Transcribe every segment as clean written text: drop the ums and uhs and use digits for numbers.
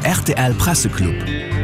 Rtl Presseclub.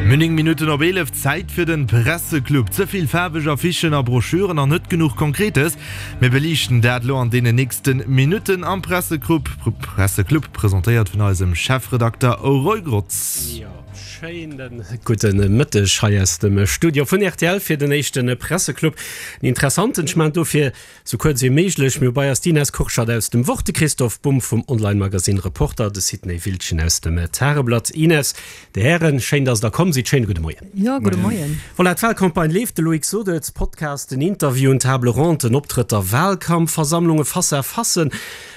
Mir 9 Minutten op 11, Zäit fir den Presseclub. Ze vill faarweg Affichen a Broschüren an net genuch Konkretes. Mir beliichten dat elo an deenen nächsten Minutten am Presseclub, Presseclub presentéiert vun eisem Chefredakter Roy Grotz. Jo, schéinen gudde Mëtteg hei aus dem Studio vun rtl fir den éischte Presseclub. En interessanten, ech maachen dofir Sou kuerz wéi méiglech, mir hu bei eis d'Ines Kurschat aus dem Wort, de Christoph Bumb vum Online-Magasinn Reporter, de Sidney Wildgen aus dem Tageblatt. Ines, Dir Hären, schéin, dass Der komm sidd. Schéine gudde Moien. Jo, gudde Moien. Voilà, d'Wahlcampagne leeft, de Loïc sot et, Podcasten, Interviewen, Table Ronden, Optrëtter, Wahlkampfversammlungen, Face-à-facen.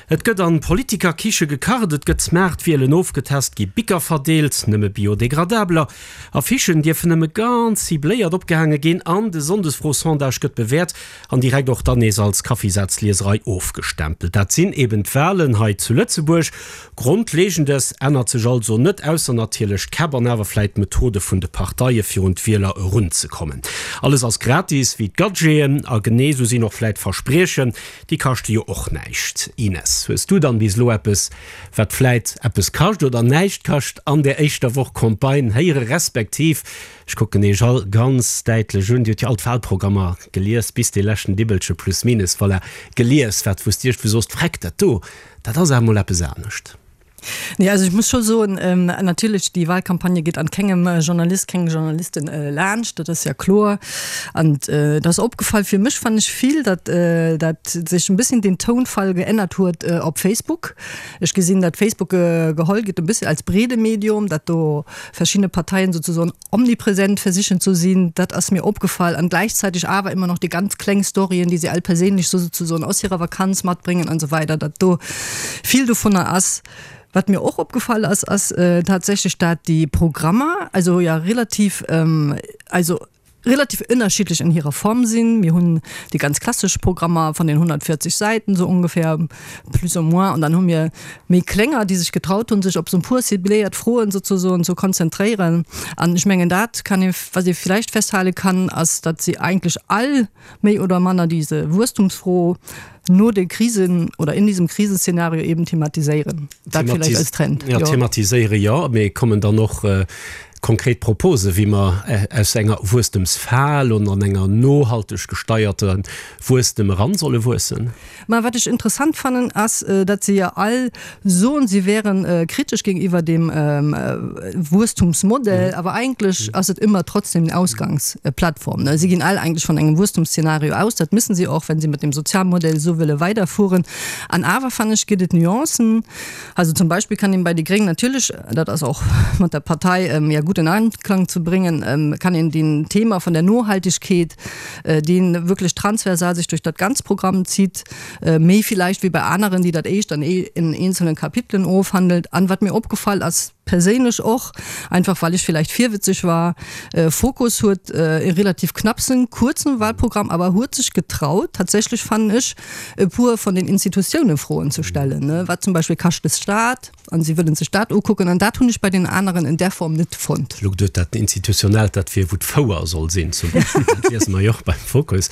Et gëtt an Politikerkiche gekacht, et gëtt Smartwielen ofgetest, gi Bicker verdeelt, nëmme biodégradabeler, Affichen dierfen nëmme ganz cibléiert opgehaange ginn an de Sonndesfro-Sondage gëtt bewäert An direkt och dann nees als Kaffisazlieserei ofgestempelt. Dat sinn eben d'Wahlen hei zu Lëtzebuerg. Grondlegendes ännert sech also net, ausser natierlech d'Käpp an awer vläit d'Methode vun de Parteie fir un d'Wieler erunzekommen. Alles ass gratis, wéi d'Gadgeten, a genee sou sinn och vläit d'Verspriechen, déi kaschte jo och näischt. Ines, hues du dann bis elo eppes, wat vläit eppes kascht oder näischt kascht an där éischter Woch Campagne héiere respektiv Ech kucken Iech all ganz däitlech un. Dir hutt jo all d'Wahlprogrammer gelies, bis dee leschten Dibbelche plus minus, voilà, gelies. Wat wou s Dir iech sooss, Vreck, dat do, dat ass awer emol eppes anescht. Nee, also ech muss scho soen, natierlech, déi Wahlcampagne geet an kengem Journalist, kengem Journalistin laanscht, dat ass ja kloer. An et ass opgefall, fir mech fannen ech vill, datt dat sech en bësschen den Tounfall geännert huet op Facebook. Ech gesinn, datt Facebook geholl gëtt e bësschen als breede Medium, datt do verschiedene Parteien sozusagen omnipräsent versichen zu sinn, dat ass mir opgefall an gleichzeitig awer immer noch déi ganz kleng Storyen, déi se all perséinlech so sozusagen aus hirer Vakanz matbréngen an esou weider, dat do vill dovunner ass. Wat mir och opgefall ass, ass tatsächlech, dat déi Programmer also ja relativ also relativ ënnerschiddlech an hirer Form sinn. Mir hunn déi ganz klassesch Programmer van den 140 Säiten sou ongefähr, plus ou moins, an dann hu mir méi klénger, déi sech getraut hunn, sech op sou e puer cibléiert Froen sozesoen ze konzentréieren. An ech mengen dat kann ee, wat ee villäicht festhale kann, ass, datt si eigentlech all méi oder manner diese Wuesstumsfro no de Krisen oder in diesem Krisenszenario eben thematiséieren. Dat vielleicht als Trend. Ja, thematiséiere jo, mee kommen dann och konkret Propose wéi mer aus enger Wuesstemsfal an an enger nohalteg gesteierter Wuesstem eran solle wuessen? Mä wat ech interessant fannen, ass, datt se jo all soen, si wären kritesch géintiwwer dem Wuesstumsmodell, awer eigentlech ass et ëmmer trotzdem den Ausgangsplattform. Si ginn all eigentlech vun engem Wuesstumsszenario aus. Dat müssen si och, wenn si mat dem Sozialmodell esou wëlle weiderfueren. An awer, fannen ech, gëtt et Nuancen. Also zum Beispill kann een bei déi Gréng natierlech, dat ass och mat der Partei ja gutt in Einklang ze bréngen, kann een den Thema vun der Nohaltegkeet, deen wierklech transversal sech duerch dat ganz Programm zitt, méi villäicht wéi bei aneren, déi dat éischt an in eenzelnen Kapitelen ofhandelt. An wat mir opgefall ass, perséinlech och, einfach well ech villäicht virwëtzeg war, Fokus huet e relativ knappsen, kuerzen Wahlprogramm, awer huet sech getraut, tatsächlech fannen ech, e puer von den Institutiounen Froen ze stellen, wat zum Beispill kascht de Staat, an si wëllen sech dat ukucken, an dat hunn ech bei den aneren in där Form net fonnt. Elo geduet, dat Institutionellt, dat wier wou d'Fouer soll sinn zum Beispill, dat liese mer jo och beim Fokus.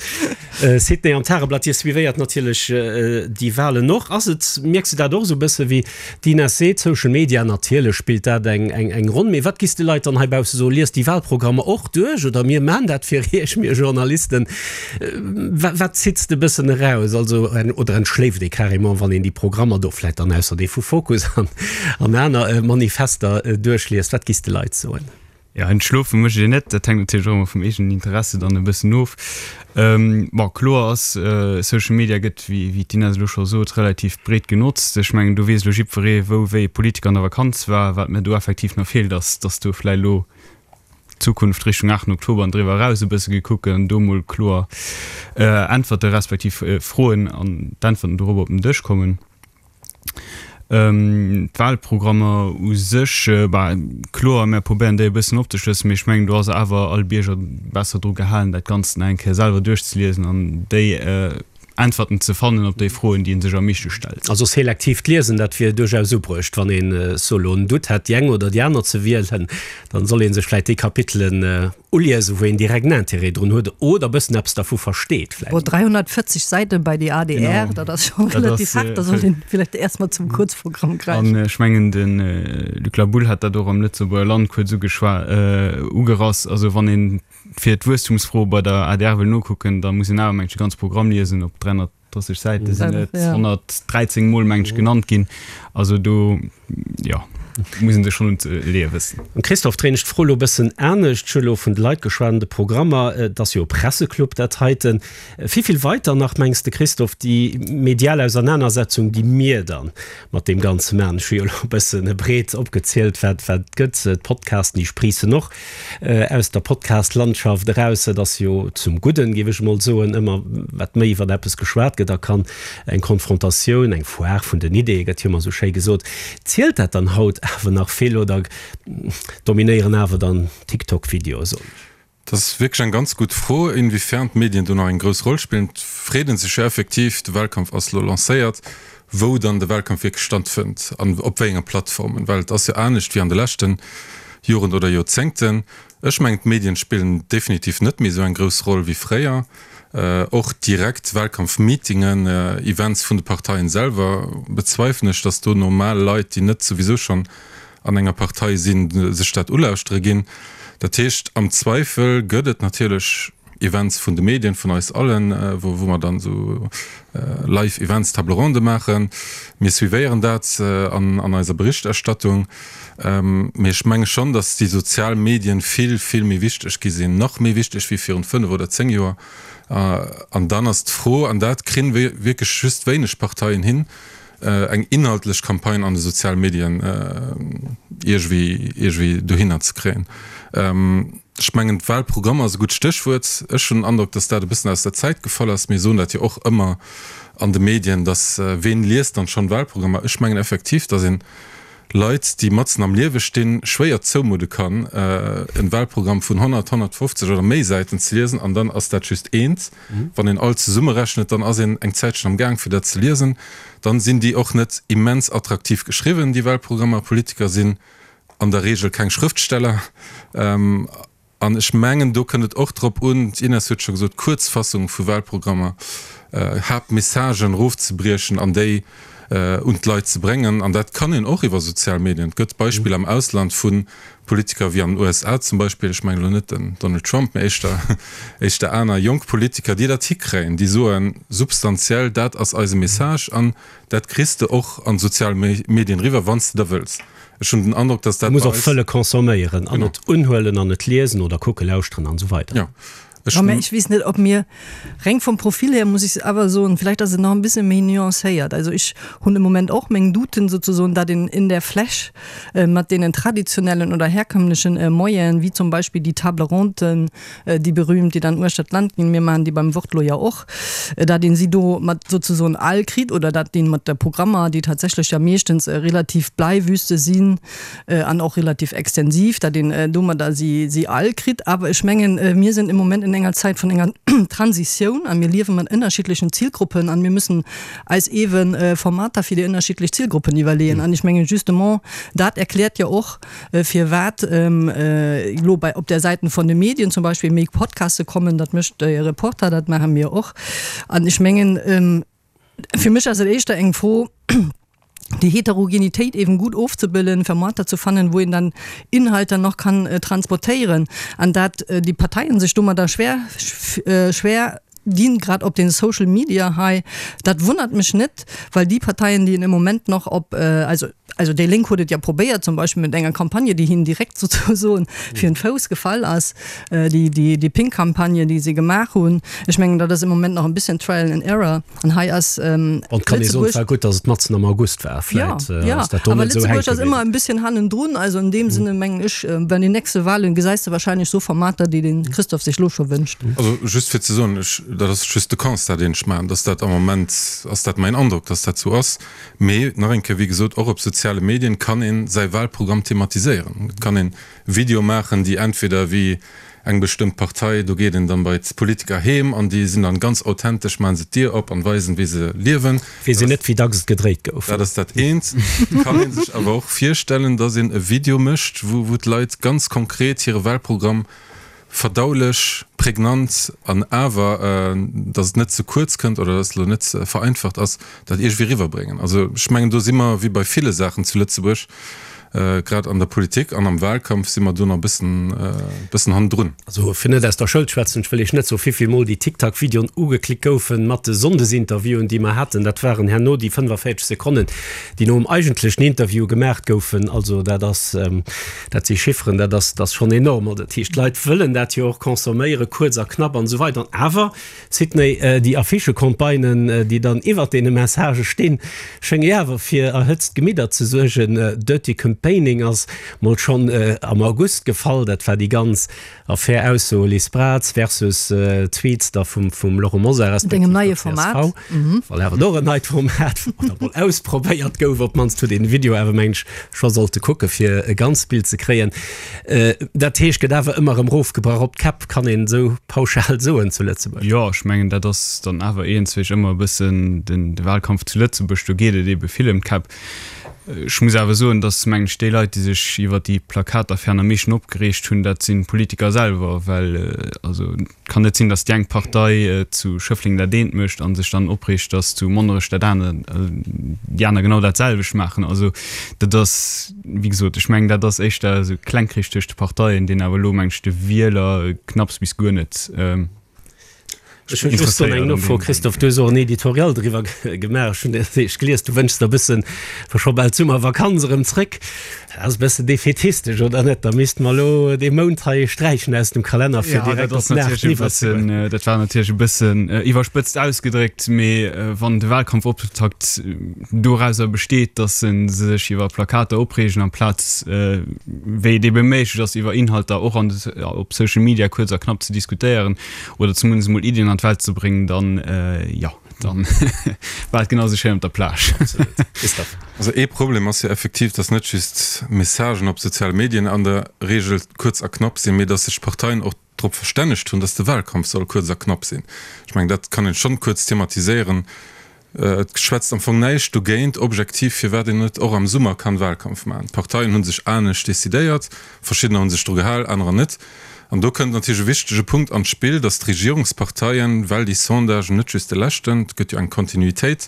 Sidney, am Tageblatt, Dir suivéiert natierlech déi Wahlen och. Ass et, mierks de dat och esou e bësse wéi d'Ines seet, Social Media, natierlech spillt dat eng eng Ronn, mee wat giss de Leit dann heibausse soen, liest déi Wahlprogrammer och duerch oder mir maan dat fir Iech, mir Journalisten, Wat zitt de bëssen eraus? Also, oder entschléift ee carrément, wann een déi Programmer do vläit dann ausser dee vu Fokus an an aner Manifester duerchliest? Wat giss de Leit soen? Jo, entschlofe mécht een net. Dat hänkt natierlech och ëmmer vum eegenen Interesse dann e bëssen of. Bon, kloer ass, Social Media gëtt, wéi wéi d'Inès elo scho sot, relativ breet genotzt. Ech mengen, do weess elo jiddweree, wou wéi e Politiker an der Vakanz war. Wat mir do effektiv nach feelt, ass, datt do vläicht elo Zukunft Richtung 8 Oktober an driwwer eraus e bësse gekuckt gëtt an do mol kloer Äntwerte respektiv Froen an d'Äntwerten dorobber op den Dësch kommen. D'Wahlprogrammer u sech, bah, kloer, mär probéieren déi e bëssen opzeschlëssen, mee ech mengen, do ass awer all Bierger besser dru gehalen, dat Ganzt nach eng Kéier selwer duerchzeliesen an déi Äntwerten ze fannen op déi Froen, déi ee sech am meeschte stellt. Also selektiivt Liesen, dat wier duerchaus ubruecht. Wann een so elo en Doute hätt, déi eng oder déi aner ze wielen, dann soll ee sech vläit déi Kapitelen. Uliesen, wou een direkt en Intérêt drun huet oder e bëssen eppes dervu versteet vläicht. Bon, 340 Säiten bei déi adr, dat ass scho relativ haart, da sollt een vläicht erst mol zum Kuerzprogramm gräifen. An ech mengen, de Luc Laboulle hat dat och am Lëtzebuerger Land kuerz ugeschwa ugerass, also wann een fir d'Wuesstumsfro bei der adr wëll nokucken, da muss een awer, meng ech, de ganze Programm liesen op 300. 30 Säite sinn et 113 Mol meng ech genannt ginn. Also do jo muss een sech schonn un d'Leeë wëssen. Christophe, dréin ech d'Fro elo e bëssen anescht. Ech hu elo vun de Leit geschwat an de Programmer. Et ass jo e Presseclub dat heiten. Wéi vill weiter nach mengs de Christophe, déi medial Ausernanersetzung déi mir dann mat deem Ganze maachen? Ech hu jo elo e bëssen breet opgezielt wat wat et gëtt, d'Podcasten déi spriissen och. Aus der Podcast-Landschaft eraus, et ass jo zum Gudden, géif ech emol soen, ëmmer wat méi iwwer eppes geschwat gëtt a kann eng Konfrontatioun, eng Foire vun den Ideeë gëtt jo ëmmer esou schéi gesot. Zielt dat dann haut awer nach vill oder dominéieren awer dann TikTok-Videoe, soen ech? Dat ass wierklech eng ganz gutt Fro, inwiefern d'Medien do nach eng grouss Roll spillen. Et freet ee sech jo effektiv, de Wahlkampf ass elo lancéiert, wou dann de Wahlkampf wierklech stattfënnt an op wéi enge Plattformen, well et ass jo anescht wéi an de leschte Joren oder Joerzéngten. Ech mengen, d'Medien spillen definitiv net méi esou eng grouss Roll wéi fréier. Och direkt Wahlkampfmeetingen, Events vun de Parteien selwer bezweifelen ech, datt do normal Leit, déi net souwisou schonn an enger Partei sinn, sech dat ulauschtere ginn. Dat heescht, am Zweifel gëtt et natierlech Events vun de Medien, vun eis allen, wou mer dann esou live Events, Table ronde maachen. Mir suivéieren dat an eiser Berichterstattung. Mee ech menge schonn, datt déi sozial Medien vill, vill méi wichteg gi sinn, nach méi wichteg wéi virun 5 oder 10 Joer. An dann ass d'Fro, an dat kri wierklech just wéineg Parteien hin, eng inhaltlech Campagne an de soziale Medien iergwéi iergwéi dohinner ze kréien. Ech mengen, d'Wahlprogramm ass e gutt Stéchwuert. Ech hunn den Androck, datt dat e bëssen aus der Zäit gefall ass. Mir soen dat jo och ëmmer an de Medien, datt ween liest dann schonn Wahlprogrammer? Ech mengen effektiv, datt een Leit, déi matzen am Liewe stinn, schwéier zoumudde kann, en Wahlprogramm vun 100, 150 oder méi Säiten ze liesen an dann ass dat just eent. Wann een all zesummerechnet, dann ass een eng Zäitchen am Gaang fir dat ze liesen. Dann sinn déi och net immens attraktiv geschriwwen, déi Wahlprogrammer. Politiker sinn an der Regel keng Schrëftsteller. An ech mengen, do kënnt et och drop un, d'Ines huet scho gesot, Kuerzfassung vu Wahlprogrammer, Haaptmessagen erofzebriechen an déi un d'Leit ze bréngen. An dat kann een och iwwer sozial Medien. Et gëtt Beispiller am Ausland vu Politiker wéi an den USA zum Beispill, ech mengen elo net den Donald Trump, mä éischter, éischter aner jonk Politiker, déi dat hikréien, déi soen substantiell, dat ass eise Message an dat kriss de och an d'sozial Medien eriwwer, wann s de da wëlls. Ech hunn den Androck, dass dat bei eis. Muss och wëlle consomméieren an et unhuelen an et liesen oder kucken, lauschteren an esou weider. Jo, ech. Mä ech weess net, ob mir, reng vum Profil her muss ech awer soen, vielleicht ass et nach en bësse méi nuancéiert. Also ech hunn de Moment och meng Douten sozesoen, datt een in der Fläch mat deenen traditionellen oder herkömmlechen Moyenen, wéi zum Beispill déi Table ronden, déi berühmt, déi dann uechter d'Land ginn, mir maachen déi beim Wort lo jo och, dat een si do mat sozesoen all kritt oder dat een mat de Programmer, déi tatsächlech ja meeschtens relativ Bleiwüste sinn an och relativ extensiv, dat een domadder si si all kritt. Awer ech mengen, mir sinn im Moment in enger Zäit vun enger Transitioun a mir liewe mat ënnerschiddlechen Zilgruppen an mir müssen eis eeben Formater fir déi ënnerschiddlech Zilgruppen iwwerleeën. An ech mengen justement dat erkläert jo och, firwat elo bei op der Säiten von de Medien zum Beispill méi Podcaste kommen, dat mécht de Reporter, dat maache mir och. An ech mengen, fir mech ass et éischter eng Fro, déi Heterogenitéit eben gut ofzebilden, Formater ze fannen, wou een dann Inhalter nach kann transportéieren an dat déi Parteien sech domadder schwer schwer dinn, grad op den Social Media hei, dat wonnert mech net, well déi Parteien, déi een im Moment nach op, also Also déi Lénk huet et jo probéiert, zum Beispill mat enger Campagne, déi hinnen direkt souzesoen fir den Fouss gefall ass, déi, déi, déi Pink Campagne, déi si gemaach hunn. Ech mengen, dat ass am Moment nach e bësschen Trial and Error. An hei ass An et kann ee soen, et war gutt, datt et matzen am August war. Vläit ass dat do net esou hänke bliwwen. Awer Lëtzebuerg ass ëmmer e bësschen hannendrun. Also an deem Sënne mengen ech, bei den nächste Wahlen gesäis de wahrscheinlech esou Formater, déi de Christophe sech elo scho wënscht. Also just fir ze soen, ech, dat ass just de Constat, deen ech maachen, datt dat am Moment ass dat mäin Androck, datt dat esou ass. Mee nach eng Kéier, wéi gesot, och op soziale Medien kann ee säi Wahlprogramm thematiséieren. Et kann een Videoe maachen, déi entweder wéi eng bestëmmt Partei, do geet een dann bei d'Politiker heem an déi sinn dann ganz authentesch, maachen se d'Dier op an weisen, wéi se liewen. Weess een net, wéi dacks et gedréit gouf. Dat ass dat eent. Et kann ee sech awer och virstellen, dass een e Video mécht, wou wou d'Leit ganz konkret hire Wahlprogramm. Verdaulech, prägnant an awer, datt et net ze kuerz kënnt oder datt et elo net vereinfacht ass, dat iergendwéi eriwwerbréngen. Also ech mengen, do si mer wéi bei ville Saachen zu Lëtzebuerg, grad an der Politik an am Wahlkampf si mer do nach e bëssen, bëssen hannendrun. Also fir net aus der Schoul schwätzen, ech wëll Iech net soen, wéivill Mol déi TikTok-Videoen ugeklickt goufen mat de Sonndesinterviewen, déi mer haten. Dat waren herno déi 45 Sekonnen, déi nom eigentlechen Interview gemaacht goufen. Also dat ass. Dat si Chifferen, dat ass, dat ass schonn enorm. Also dat heescht, d'Leit wëllen dat jo och consomméieren, kuerz a knapp an esou weider. An awer, Sidney, déi Affichecampagnen, déi dann iwwert deene Messagë stinn, schénge jo awer fir erhëtzt Gemidder ze suergen. Dirty Campaigning ass mol schonn am August gefall. Dat war déi ganz Affär Ausso Liz Braz versus Tweets da vum Laurent Mosar respektiv der csv. Well awer och en neit Format oder mol ausprobéiert gouf, op d'mannst huet een de Video awer mengen ech scho sollte kucke fir e ganzt Bild ze kréien. Dat heescht gëtt awer ëmmer erëm rofgebrach op d'Käpp, kann een esou pauschal soen zu Lëtzebuerg? Jo, ech mengen dat ass dann awer iergendzwéi ëmmer e bëssen de Wahlkampf zu Lëtzebuerg, do geet et ebe vill ëm d'Käpp. Ech muss awer soen, datt, mengen ech, déi Leit, déi sech iwwer déi Plakataffären am meeschten opgereegt hunn, dat sinn d'Politiker selwer, well also et kann net sinn, datt déi eng Partei zu Schëffleng dat eent mécht a sech dann opreegt, datt zu Monnerech dat aner, déi aner genau dat selwecht maachen. Also dat ass, wéi gesot, ech mengen, dat ass éischter esou Klengkrich tëscht de Parteien, deen awer elo, mengen ech, de Wieler knapps bis guer net Ech hunn just do eng Nofro, Christophe, du hues och en Editorial driwwer gemaach, ech hunn dat eescht gelies, du wënschs der e bëssen, wa scho bal d'Summervakanz erëm zréck, dat ass e bëssen defätistesch, oder net? Da misste mer elo dee Mount hei sträichen aus dem Kalenner, fir direkt op den 8 iwwerzegoen. Dat war natierlech e bëssen iwwerspëtzt ausgedréckt, mee wann de Wahlkampfoptakt dorauser besteet, datt se sech iwwer Plakater opreegen, amplaz, wéi et ebe méiglech ass, iwwer Inhalter och an op Social Media kuerz a knapp ze diskutéieren, oder zumindest emol Iddien an d'Welt ze bréngen, dann jo, dann war et genau esou schéin op der Plage. Absolut. Christophe. Also ee Problem ass jo effektiv, dass net just Messagen op soziale Medien an der Regel kuerz a knapp sinn, mee dass sech d'Parteien och drop verstännegt hunn, dass de Wahlkampf soll kuerz a knapp sinn. Ech mengen, dat kann een schonn kuerz thematiséieren. Et schwätzt am Fong näischt dogéint, objektiv, firwat een net och am Summer kann Wahlkampf maachen. D'Parteien hu sech anescht decidéiert, verschiddener hu sech dru gehal, anerer net. An do kënnt natierlech e wichtege Punkt an d'Spill, datt d'Regierungsparteien, well déi Sondagen, net just de leschten, et gëtt jo eng Kontinuitéit,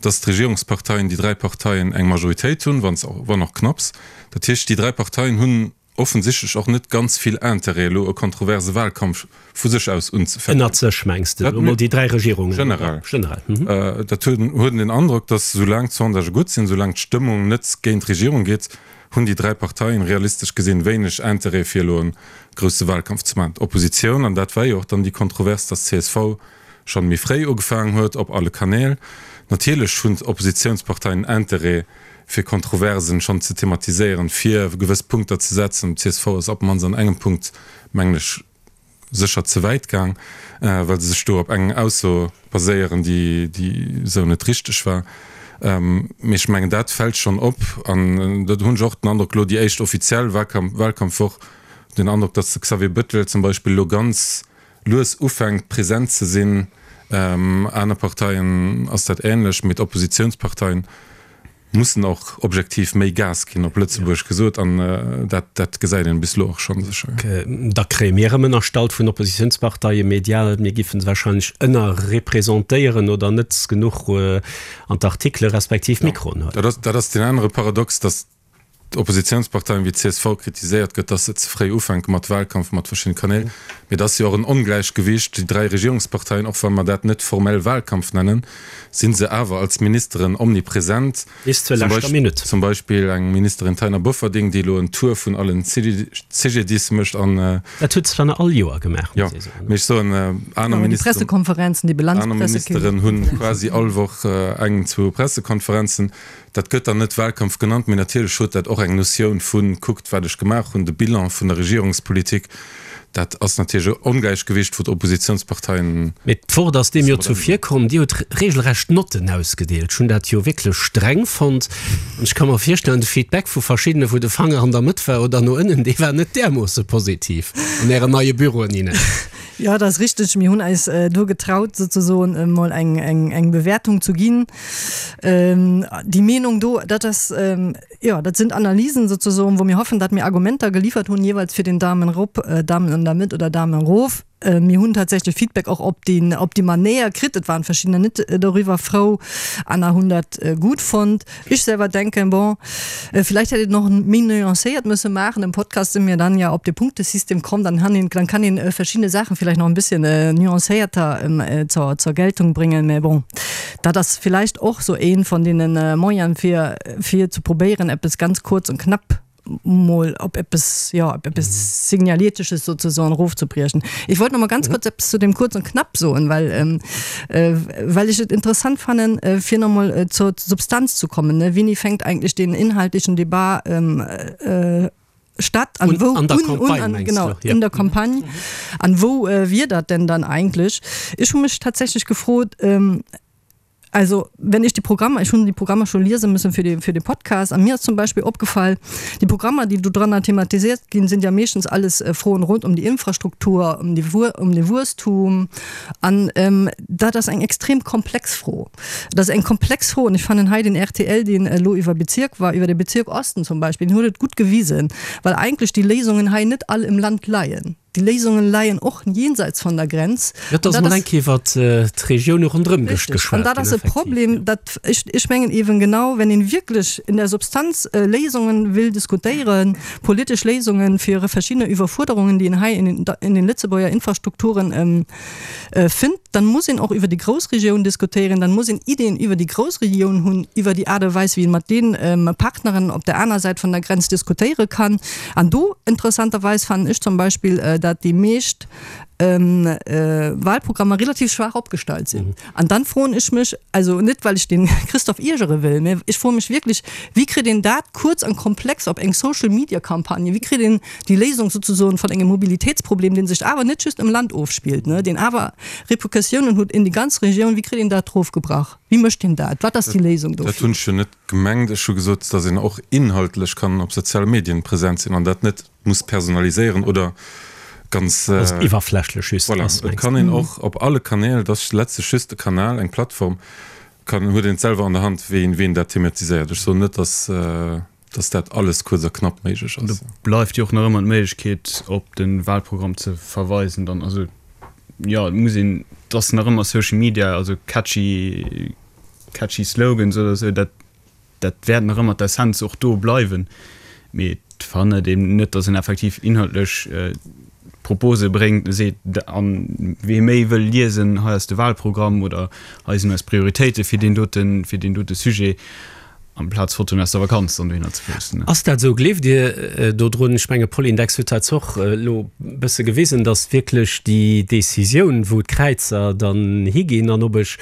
datt d'Regierungsparteien, déi dräi Parteien, eng Majoritéit hunn, wann och knapps. Dat heescht, déi dräi Parteien hunn offensichtlech och net ganz vill Intérêt elo e kontroverse Wahlkampf vu sech aus unzefänken. Ënnert sech mengs de elo mol déi 3 Regierungen? Generell. Generell. Dat huet een den Androck, datt soulaang d'Sondagë gutt sinn, soulaang d'Stëmmung net géint d'Regierung geet, hunn déi 3 Parteien realistesch gesinn wéineg Intérêt fir elo e grousse Wahlkampf ze maachen. D'Oppositioun, an dat war jo och dann déi Kontrovers, datt csv schonn méi fréi ugefaangen huet op alle Kanäl, natierlech hunn d'Oppositiounsparteien Intérêt, fir Kontroversen schonn ze thematiséieren, fir gewëss Punkter ze setzen. D'CSV ass op d'mannst an engem Punkt, mengen ech, sécher ze wäit gaang, well se sech do op eng Ausso baséieren, déi esou net richteg war. Mee ech mengen, dat fält schonn op. An do hunn ech och den Androck, elo déi éischt offiziell Wahlkampfwoch, den Androck, datt de Xavier Bettel zum Beispill elo ganz lues ufänkt present ze sinn. Aner Parteien ass dat ähnlech, mee d'Oppositiounsparteien mussen och objektiv méi Gas ginn, op Lëtzebuergesch gesot, an dat dat gesäit een bis elo och schonn sécher. Da kréie mir erëm ënnerstallt vun Oppositiounsparteie medial, mir giffen se wahrscheinlech ënnerrepresentéieren oder net genuch an d'Artikele respektiv Mikroen huelen. Dat ass deen anere Paradox, datt d'Oppositiounsparteien wéi csv kritiséiert gëtt, dass se ze fréi ufänke mat Wahlkampf mat verschiddene Kanäl. Mee et ass jo och en Ongläichgewicht. Déi 3 Regierungsparteien, och wa mer dat net formell Wahlkampf nennen, si se awer als Ministeren omnipresent. Bis zur leschter Minutt. Zum Beispill eng Ministerin Taina Bofferding, déi elo en Tour vun allen CGDIS mécht an. Dat huet se dann all Joer gemaach, muss ee soen. Jo, mee ech soen, aner Ministeren hunn quasi all Woch eng, zwou Pressekonferenzen. Dat gëtt dann net Wahlkampf genannt, mee natierlech huet dat och eng Notioun vu kuckt wat ech gemaach hunn, de Bilan vun der Regierungspolitik. Dat ass natierlech e Ongläichgewicht, wou d'Oppositionsparteien. Mee d'Wort ass deem jo zuvirkomm. Dir hutt regelrecht Notten ausgedeelt. Ech hunn dat jo wierklech streng fonnt. An ech ka mer virstellen, de Feedback vu verschiddene wou de Fanger an der Mëtt war oder no ënnen, dee war net därmoosse positiv an Ären neie Büroen, Ines. Jo, dat ass richteg. Mir hunn eis do getraut, souzesoen emol eng, eng, eng Bewäertung zu ginn. Déi Meenung do, dat ass, jo, dat sinn Analysen souzesoen, wou mir hoffen, datt mir Argumenter geliefert hunn, jeeweils fir den Daumen erop, Daumen an der Mëtt oder Daumen erof. Mir hunn tatsächlech Feedback och op déi, op déi Manéier kritt. Et waren verschiddener net doriwwer frou, aner hunn dat gutt fonnt. Ich selber denke, bon, vielleicht hätt een och méi nuancéiert müsse maachen. Im Podcast sinn mir dann ja op de Punktesystem komm, dann han een, dann kann een verschiedene Saachen vielleicht nach en bisschen nuancéierter zur, zur Geltung bringen. Mä bon, dat ass vielleicht och sou een von deenen Moyenen fir, fir ze probéieren eppes ganz kurz und knapp mol op eppes, jo, op eppes Signaletisches sozusagen erofzebriechen. Ech wollt nach mal ganz kurz eppes zu dem kurz und knapp soen, well, well ech et interessant fannen, fir nach mol zur Substanz zu kommen, ne. Wéini fänkt eigentlich den inhaltlichen Debat statt an wou, An der Campagne, un, mengst genau, du? Ja. in der Campagne, an wou wier dat denn dann eigentlich? Ech hu mech tatsächlich gefrot, Also, wenn ich die Programmer, ich hunn déi Programmer scho liese müssen fir de, fir de Podcast, an mir ass zum Beispill opgefall, déi Programmer, déi do dranner thematisiert ginn, sind ja meeschtens alles Froen rund um die Infrastruktur, um die, um de Wuesstum. An dat ass eng extrem komplex Fro. Dat ass eng komplex Fro an ech fannen hei den rtl, deen elo iwwer Bezirk war, iwwer de Bezirk Osten zum Beispill, deen huet et gutt gewisen, well eigentlech déi Léisungen hei net all im Land leien. Déi Léisungen leien och jenseits von der Grenz. Jo, et ass mol eng Kéier iwwert d'Regioune ronderëm geschwat ginn. An dat ass e Problem, dat, ech, ech mengen eeben genau, wenn een wierklech in der Substanz Léisungen will diskutéieren, politesch Léisungen fir verschiddene Iwwerfuerderungen, déi een hei in den, in den Lëtzebuerger Infrastrukturen fënnt, dann muss een och iwwer déi Groussregioun diskutéieren, dann muss een Ideen iwwer déi Groussregioun hunn, iwwer déi Aart a Weis, wéi een mat de Partneren op der aner Säit vun der Grenz diskutéiere kann. An do, interessanterweis, fannen ech zum Beispill, dat déi meescht Wahlprogrammer relativ schwaach opgestallt sinn. An dann froen ech mech, also net well ech den Christophe iergere wëll, mä ech froe mech wierklech, wéi kritt een dat kuerz an komplex op eng Social-Media-Campagne, wéi kritt een déi Léisung souzesoen vun engem Mobilitéitsproblem, dee sech awer net just am Land ofspillt, deen awer Repercussiounen huet in déi ganz Regioun, wéi kritt een dat erofgebrach? Wéi mécht een dat? Wat ass déi Léisung dofir? Dat hunn ech jo net gemengt. Ech hu gesot, datt een och inhaltlech kann op soziale Medien present sinn an dat net muss personaliséieren oder ganz. Dass et iwwerflächlech just ass, mengst du? Voilà, et kann een och op alle Kanäl, et ass letztlech just e Kanal, eng Plattform, kann, huet een et selwer an der Hand, wéi een dat thematiséiert. Ech soen net, datt. dass dat alles kuerz a knapp méiglech ass. Do bleift jo och nach ëmmer d'Méiglechkeet op de Wahlprogramm ze verweisen dann. Also jo, et muss een, et ass nach ëmmer Social Media, also catchy, catchy Slogans oder esou, dat, dat wäert nach ëmmer d'Essenz och do bleiwen. Mee et verhënnert een net, dass een effektiv inhaltlech Propose bréngt, seet, an wee méi wëll liesen, hei ass de Wahlprogramm oder hei sinn eis Prioritéite fir deen doten, fir deen dote Sujet. Amplaz Fotoen aus der Vakanz dann dohinner ze posten. Ass dat esou? Gleeft Dir dodrun? Ech menge Polindex huet dat och elo e bësse gewisen, datt wierklech déi Decisioun, wou d'Kräizer dann higinn an ob ech,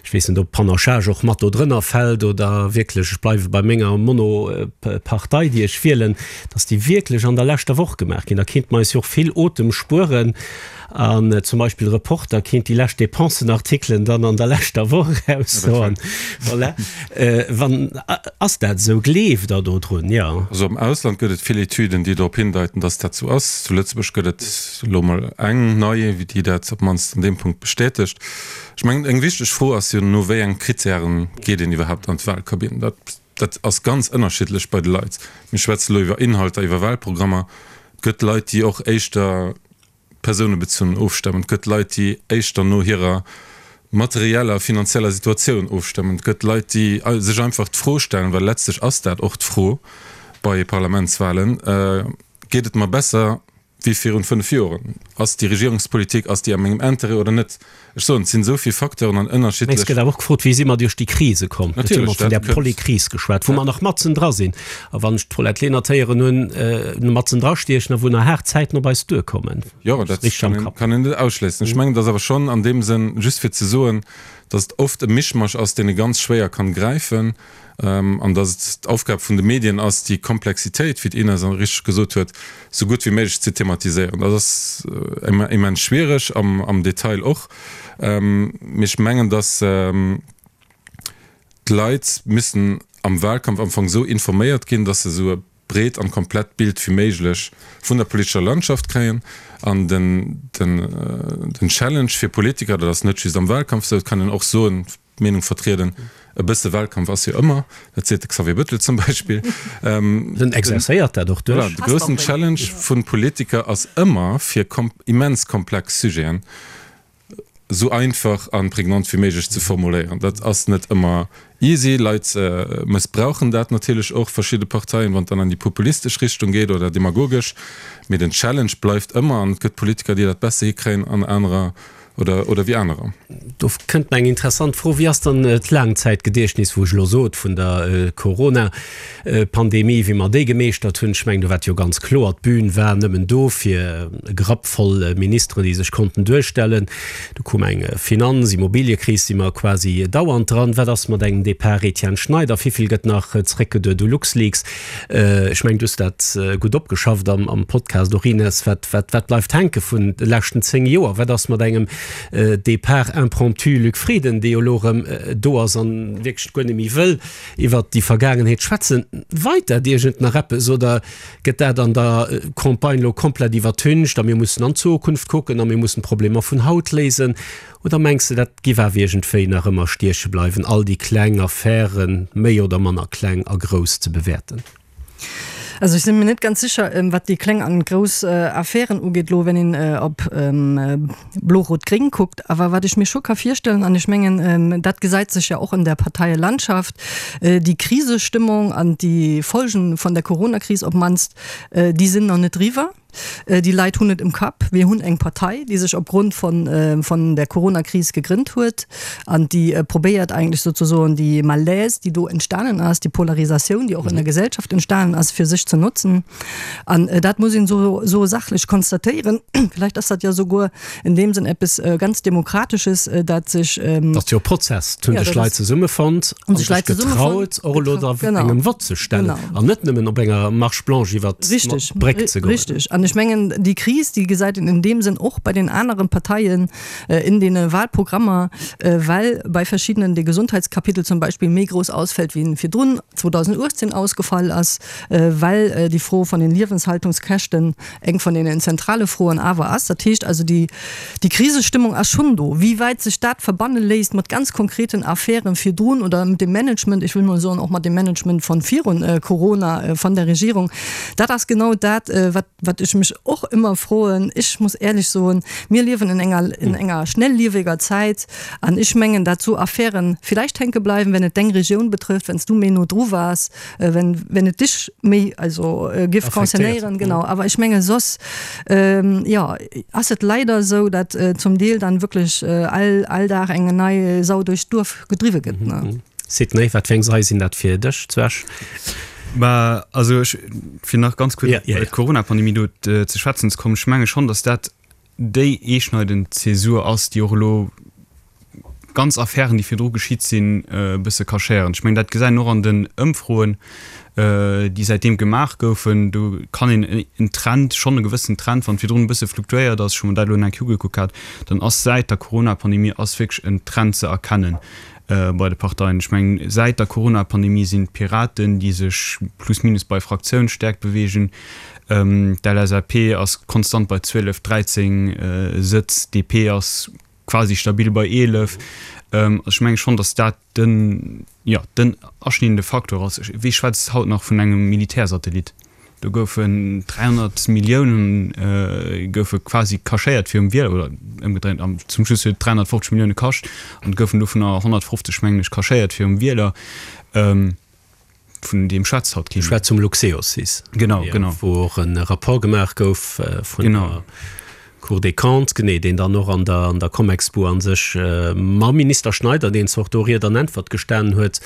ech weess net, ob Panachage och mat do drënner fält oder wierklech ech bleiwe bei menger Monopartei, déi ech wielen, datt déi wierklech an der leschter Woch gemaach ginn. Da kéinte mer eis jo och vill Otem spueren. An zum Beispill Reporter kéint déi lescht Dépensenartikelen dann an der leschter Woch eraushauen. Voilà. Wann, ass dat esou? Gleeft Der do drun? Jo. Also am Ausland gëtt et vill Etüden, déi drop hindeiten, dass dat esou ass. Zu Lëtzebuerg gëtt et elo mol eng nei, déi dat op d'mannst an deem Punkt bestätegt. Ech mengen, eng wichteg Fro ass jo, no wéi enge Krittären geet een iwwerhaapt an d'Wahlkabinn? Dat, dat ass ganz ënnerschiddlech bei de Leit. Mir schwätze elo iwwer Inhalter, iwwer Wahlprogrammer. Et gëtt Leit, déi och éischter persounebezunn ofstëmmen, et gëtt Leit, déi éischter no hirer materieller, finanzieller Situatioun ofstëmmen, et gëtt Leit, déi sech einfach d'Fro stellen, well letztlech ass dat och d'Fro bei Parlamentswahlen, Geet et mer besser wéi virun 5 Joren? Ass déi Regierungspolitik, ass déi a mengem Intérêt oder net? Ech soen, et sinn esou vill Facteuren an Mä es ënnerschiddlech. gëtt awer och gefrot, wéi si mer duerch déi Krise komm? Et huet mer vun där Polykris geschwat, wou mer nach matzen dra sinn. A wann ech d'Paulette Lenert héieren hunn, matzen dra stiechen a wou nach haart Zäiten op eis duerkommen. Jo, dat kann een net ausschléissen. Ech mengen, et ass awer schonn an deem Sënn, just fir ze soen, datt et oft e Mischmasch ass, deen ee ganz schwéier kann gräifen. An datt et d'Aufgab vun de Medien ass, déi Komplexitéit, wéi d'Ines richteg gesot huet, esou gutt wéi méiglech ze thematiséieren. Dat ass immens schwiereg, am Detail och. Mee ech mengen, datt d'Leit müssen am Wahlkampf am Fong esou informéiert ginn, datt se esou e. breet an komplett Bild wéi méiglech vun der politescher Landschaft kréien. An den, den, den Challenge fir Politiker, dat ass net just am Wahlkampf esou, et kann een och soen, d'Meenung vertrieden, e bësse Wahlkampf ass jo ëmmer, dat seet de Xavier Bettel zum Beispill. En exerzéiert dat och duerch. Voilà, de groussen Challenge vu Politiker ass ëmmer, fir immens komplex Sujeten esou einfach a prägnant wéi méiglech ze formuléieren. Dat ass net ëmmer easy. Leit mëssbrauchen dat natierlech och, verschidde Parteien, wann et dann an déi populistesch Richtung geet oder demagogesch. Mee den Challenge bleift ëmmer an et gëtt Politiker, déi dat besser hikréien an anerer oder, oder wéi anerer. Do kënnt mer eng interessant Fro, Wéi ass dann d'Laangzäitgediechtnis, wou ech elo sot, vun der Corona-Pandemie, wéi mer déi gemeeschtert hunn? Ech mengen, do war et jo ganz kloer, d'Bün war nëmmen do fir e Grapp voll Ministeren, déi sech konnten duerstellen. Du koum eng Finanz-, Immobiliëkris, si mer quasi dauernd dran. Wat ass mat engem Depart Etienne Schneider? Wivill gëtt nach zréckgeduet u LuxLeaks? Ech mengen, du hues dat gutt opgeschafft am Podcast och, Ines. Wat, wat, wat bleift hänke vun de leschten 10 Joer? Wat ass mat engem Départ impromptu Luc Frieden, dee jo elo erëm do ass an wierklech guer net méi wëll iwwert déi Vergaangenheet schwätzen? Weit dat iergend nach eppes oder gëtt dat an der Campagne elo komplett iwwertüncht a mir mussen an d'Zukunft kucken a mir mussen d'Problemer vun haut léisen? Oder mengs de, dat giff awer iergendwéi nach ëmmer stieche bleiwen, all déi kleng Affären, méi oder manner kleng a grouss, ze bewäerten? Also ech si mir net ganz sécher, wat déi kleng an grouss Affären ugeet elo, wenn een op Blo-Rot-Gréng kuckt. Awer wat ech mir scho ka virstellen, an ech mengen, dat gesäit sech ja och an der Parteielandschaft, déi Krisestëmmung an déi Folgen von der Coronakris op d'mannst, déi sinn nach net eriwwer. Déi Leit hunn et im Kapp. Mir hunn eng Partei, déi sech opgrond von, von der Coronakris gegrënnt huet an déi probéiert eigentlech sozusagen déi Malaise, déi do entstanen ass, déi Polarisatioun, déi och in der Gesellschaft entstanen ass, fir sech ze notzen. An dat muss een esou, esou sachlech konstatéieren. Vielleicht ass dat jo souguer in deem Sënn eppes ganz Demokratesches, dat sech. Dat ass jo e Prozess. Et hunn sech Leit zesummefonnt a sech getraut, och elo da engem Vott ze stellen an net nëmmen op enger Marche blanche iwwer d'Bréck ze goen. Richtig. An ech mengen, déi Kris, déi gesäit een in deem Sënn och bei den aneren Parteien in deene Wahlprogrammer, well bei verschiddenen de Gesundheitskapitel zum Beispill méi grouss ausfält, wéi en virdrun 2018 ausgefall ass, well déi Fro von den Liewenshaltungskäschten eng von deenen zentrale Froen awer ass. Dat heescht also, déi, déi Krisestëmmung ass schonn do. Wéi wäit sech dat verbanne léisst mat ganz konkreten Affären virdrun oder mit dem Management, ech wëll mol soen, och mat dem Management von virun Corona von der Regierung, dat ass genau dat, wat, wat ech mech och ëmmer froen. Ech muss éierlech soen, mir liewen in enger, in enger schnellieweger Zäit an ech mengen, dat esou Affären vielleicht hänke bleiwen, wenn et deng Regioun betrëfft, wenn s du méi no dru waars, wenn, wenn et dich méi also giff concernéieren, genau. Awer ech menge soss, jo, ass et leider esou, datt zum Deel dann wierklech all, all Dag eng nei Sau duerch d'Duerf gedriwwe gëtt, ne. Sidney, wat fir eng Sei sinn dat fir dech zu Esch? Bah, also ech, fir nach ganz kuerz op d'Corona-Pandemie do ze schwätzen ze kommen, ech menge schonn, datt dat déi eeschneidend Zäsur ass, déi och elo ganz Affären, déi virdru geschitt sinn, e bësse cachéieren. Ech mengen, dat gesäit een och an den Ëmfroen, déi säitdeem gemaach goufen. Do kann een en Trend, schonn e gewëssen Trend, wann virdrun e bësse fluktuéiert ass, ech hu mer dat elo nach eng Kéier ugekuckt gehat, dann ass säit der Corona-Pandemie ass wierklech en Trend ze erkennen bei de Parteien. Ech mengen, säit der Corona-Pandemie sinn d'Piraten, déi sech plus minus bei Fraktiounsstäerkt beweegen, D'LSAP ass konstant bei 12, 13 Sëtz, d'DP ass quasi stabil bei 11. Also ech menge schonn, datt dat den, jo, den aschneidende Faktor ass. Wie schwätzt haut nach vun engem Militärsatellit? Do goufen 300 Milliounen goufe quasi cachéiert virum Wieler, oder ëmgedréint, zum Schluss huet et 350 Millioune kascht an et goufen dovunner 150, mengen ech, cachéiert virum Wieler. Vun deem schwätzt haut kee méi. Schwätz vum Luxeosys. Genau, genau. Wou och e Rapport gemaach gouf vun der Cour des Comptes, genee, deen dann och an der, an der Comexbu a sech mam Minister Schneider, deen zwar och do Ried an Äntwert gestanen huet,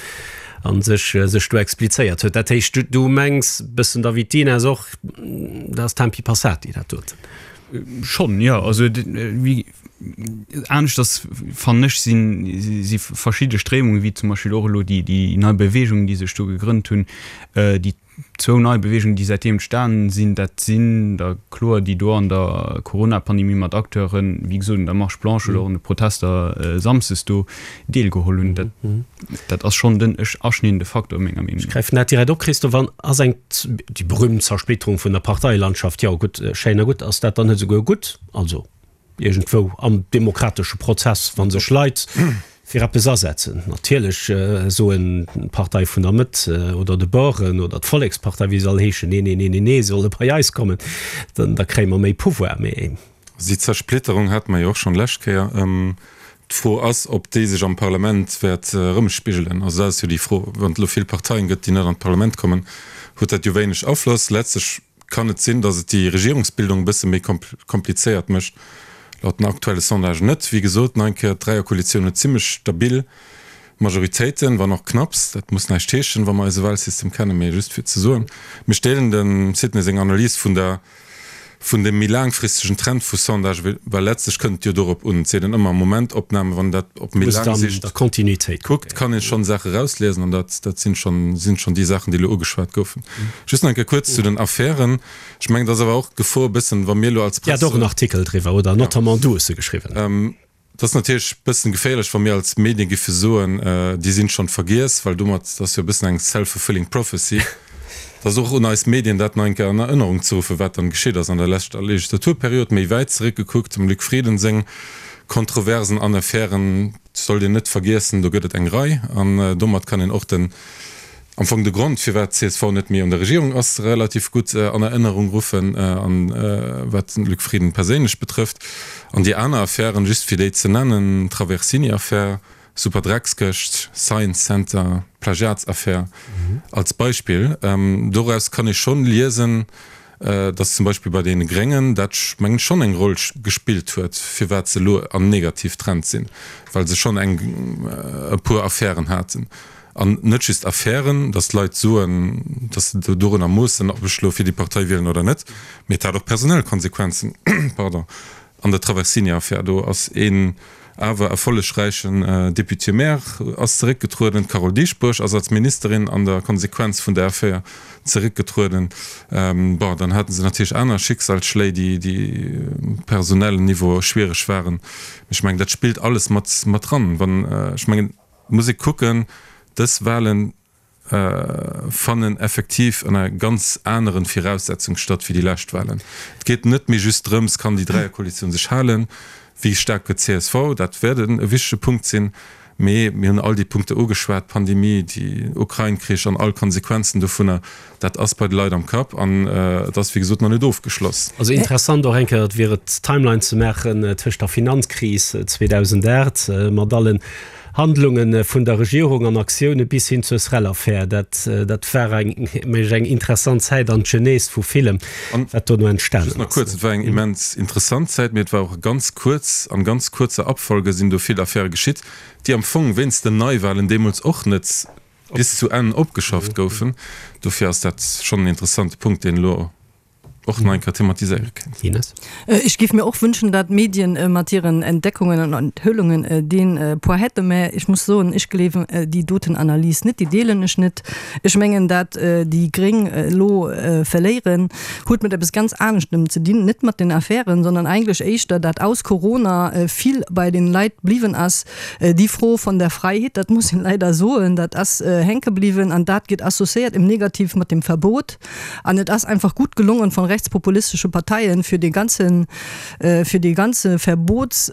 a sech, sech do explizéiert huet. Dat heescht, du, du mengs bëssen da wéi d'Ines och, dat ass Tempi passati, dat doten. Schonn, jo. Also, wéi aneschters fannen ech sinn, si verschidde Stréimungen, wéi zum Beispill och elo déi, déi nei Bewegung, déi sech do gegrënnt hunn, déi. Zwou nei Beweegungen, déi säitdeem entstanen sinn, dat sinn der kloer déi do an der Corona-Pandemie mat Acteuren, wéi gesot un der Marche blanche oder och un de Protester samsdes do deelgeholl hunn. Dat, dat ass schonn den aschneidende Faktor menger Meenung no. Ech gräifen dat direkt op, Christophe. An ass eng, déi berühmt Zersplitterung vun der Parteilandschaft, jo gutt, schéin a gutt, ass dat dann net esouguer gutt? Also. Iergendwou am demokratesche Prozess, wa sech Leit fir eppes asetzen, natierlech soen d'Partei vun der Mëtt oder de Baueren oder d'Vollekspartei, wéi se all heeschen, nee, nee, nee, nee, nee, se solle bei eis kommen, dann da kréie mer méi Pouvoir. Mee. Déi Zersplitterung hate mer jo och schonn d'lescht Kéier. D'Fro ass, ob déi sech am Parlament wäert erëmspigelen. Also dat ass jo déi Fro. Wann et elo vill Parteien gëtt, déi net an d'Parlament kommen, huet dat jo wéineg Afloss. Letztlech kann et sinn, datt et déi Regierungsbildung e bësse méi komplizéiert mécht. Laut den aktuelle Sondagen net. Wéi gesot, nach eng Kéier, d'Dräierkoalitioun huet zimmlech stabil Majoritéiten, wann och knapps. Dat muss näischt heeschen, wa mer eise Wahlsystem kennen, mee just fir ze soen, mir deelen dem Sidney seng Analys vun der vun dem méi laangfristegen Trend vu Sondage, well letztlech kënnt et jo dorop un, et seet een ëmmer Momentopname, wann een dat op méi laang Sicht kuckt, kann ee schonn Saache erausliesen an dat dat sinn schonn sinn schonn déi Saachen, déi elo ugeschwat goufen. Just nach eng Kéier kuerz zu den Affären. Ech mengen, et ass awer och d'Gefor e bëssen, wa mir elo als Dir hat Press. och en Artikel driwwer, oder? Notamment du hues e geschriwwen. Et ass natierlech e bëssen geféierlech, wa mir als Medien giffe soen, déi sinn schonn vergiess, well domat, dat ass jo e bëssen eng self-fulfilling prophecy, et ass och un eis Medien, dat nach eng Kéier an Erënnerung ze ruffen, wat dann geschitt ass an der leschter Legislaturperiod. Méi wäit zeréckgekuckt, dem Luc Frieden seng Kontroversen an Affären sollt een net vergiessen, do gëtt et eng Rei an domat kann een och den Am Fong de Grond, firwat csv net méi an der Regierung ass, relativ gutt an Erënnerung ruffen, an wat den Luc Frieden perséinlech betrëfft. An déi aner Affären, just fir déi ze nennen, Traversini-Affär, Superdreckskëscht, Science Center, Plagiatsaffär als Beispill, doraus kann ee schonn liesen, datt zum Beispill bei deene Gréngen dat, mengen ech, schonn eng Roll gespillt huet, firwat se elo am Negativtrend sinn, well se schonn eng e puer Affären haten. An net just Affären, datt d'Leit soen, datt se dorunner moossen, ob ech elo fir déi Partei wielen oder net, mee et hat och personell Konsequenzen. Pardon. An der Traversini-Affär, do ass een awer erfollegräichen Député-maire ass zeréckgetrueden, d'Carole Dieschbourg ass als Ministerin an der Konsequenz vun der Affär zeréckgetrueden. Bon, dann hate se natierlech aner Schicksalsschléi, déi um personellen Niveau schwiereg waren. Mee ech mengen, dat spillt alles mat mat dran. Wann, ech mengen, Et muss ee kucken, dës Wahlen fannen effektiv ënner ganz aneren Viraussetzung statt wéi déi lescht Wahlen. Et geet net méi just drëms, kann déi Dräierkoalitioun sech halen, wéi staark gëtt csv, dat wäert e wichtege Punkt sinn, mee mir hunn all déi Punkte ugeschwat, d'Pandemie, déi Ukrain-Krich an all Konsequenzen dovunner, dat ass bei de Leit am Kapp an et ass wéi gesot nach net ofgeschloss. Also interessant och eng Kéier, et wier et d'Timeline ze maachen tëscht der Finanzkris 2008 mat allen Handlunge vun der Regierung an Aktioune bis hin zur Srel-Affär. Dat dat war eng mech eng interessant Zäit an d'Genèse vu villem, wat dono entstanen ass. Just nach kuerz, Et war eng immens interessant Zäit, mee et war och ganz kuerz. An ganz kuerzer Abfolge sinn do vill Affäre geschitt, déi am Fong wéinst den Neiwahlen deemools och net bis zu Enn opgeschafft goufen. Dofir ass dat schonn en interessante Punkt, deen elo och nach eng Kéier thematiséiere kéint. Ines. Ech géif mir och wünschen, dat d'Medien mat hiren Entdeckungen an Enthüllungen dee Poids hätten, mä ech muss soen, ech gleewen déi doten Analys net, déi deelen ech net. Ech mengen, dat déi Gréng elo verléieren, huet mat eppes ganz aneschtem ze dinn, net mat den Affären, sondern eigentlech éischter, dat aus Corona vill bei den Leit bliwwen ass, Déi Fro von der Freiheet, dat muss een leider soen, dat ass hänke bliwwen an dat gëtt associéiert im Negativ mat dem Verbot. An et ass einfach gutt gelongen von rechtspopulistesche Parteien, fir dee ganzen, fir dee ganze Verbots,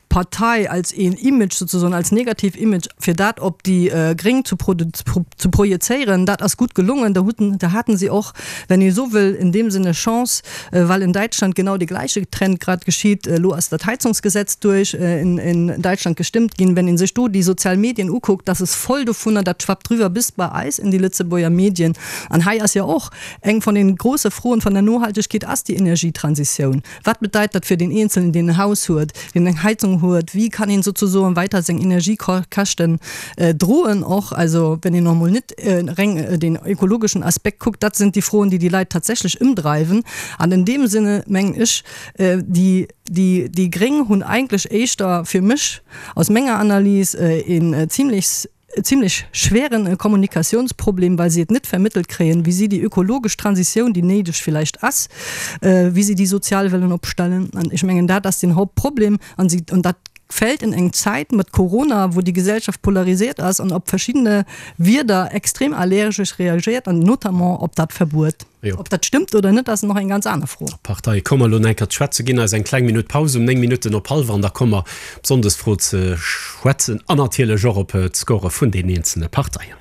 Partei als een Image sozusagen, als negativ Image, fir dat op déi Gréng zu zu projezéieren. Dat ass gutt gelongen. Da hutten, da haten si och, wenn ee sou wëll, in deem Sinne Chance, well in Däitschland genau dee gläiche Trend grad geschitt. Elo ass dat Heizungsgesetz duerch in in Däitschland gestëmmt ginn. Wenn ee sech do déi sozial Medien ukuckt, dat ass voll dovunner, dat schwappt rüwer bis bei eis in déi Lëtzebuerger Medien. An hei ass jo och eng von den große Froen von der Nohaltegkeet ass déi Energietransitioun. Wat bedeit dat fir deen Eenzelnen, deen en Haus huet, deen eng Heizung huet? Wéi kann een sozusoen weiter seng Energiekäschten droen och? Also wenn een och emol net reng deen ökologeschen Aspekt kuckt, dat sinn déi Froen, déi déi Leit tatsächlech ëmdreiwen. An in deem Sinne mengen ech, déi, déi, déi Gréng hunn eigentlech éischter fir mech aus menger Analys een zimlech. zimlech schweren Kommunikationsproblem, well si et net vermëttelt kréien, wéi si déi ökologesch Transitioun, déi néideg villäicht ass, wéi si déi sozial wëllen opstellen. An ech mengen, dat ass den Hauptproblem. An si, an dat fält in eng Zäit mat Corona, wou déi Gesellschaft polarisiert ass an op verschiddene Wierder extrem allergesch reagiert, an notamment op dat Verbuet. Ob dat stëmmt oder net, ass nach eng ganz aner Fro. Op d'Parteie komme mer elo nach eng Kéier ze schwätzen. Ginn eis eng kleng Minutt Paus um 9 Minutten op hallwer an da komme mer op d'Sonndesfro ze schwätzen an natierlech och op d'Score vun den eenzelne Parteien.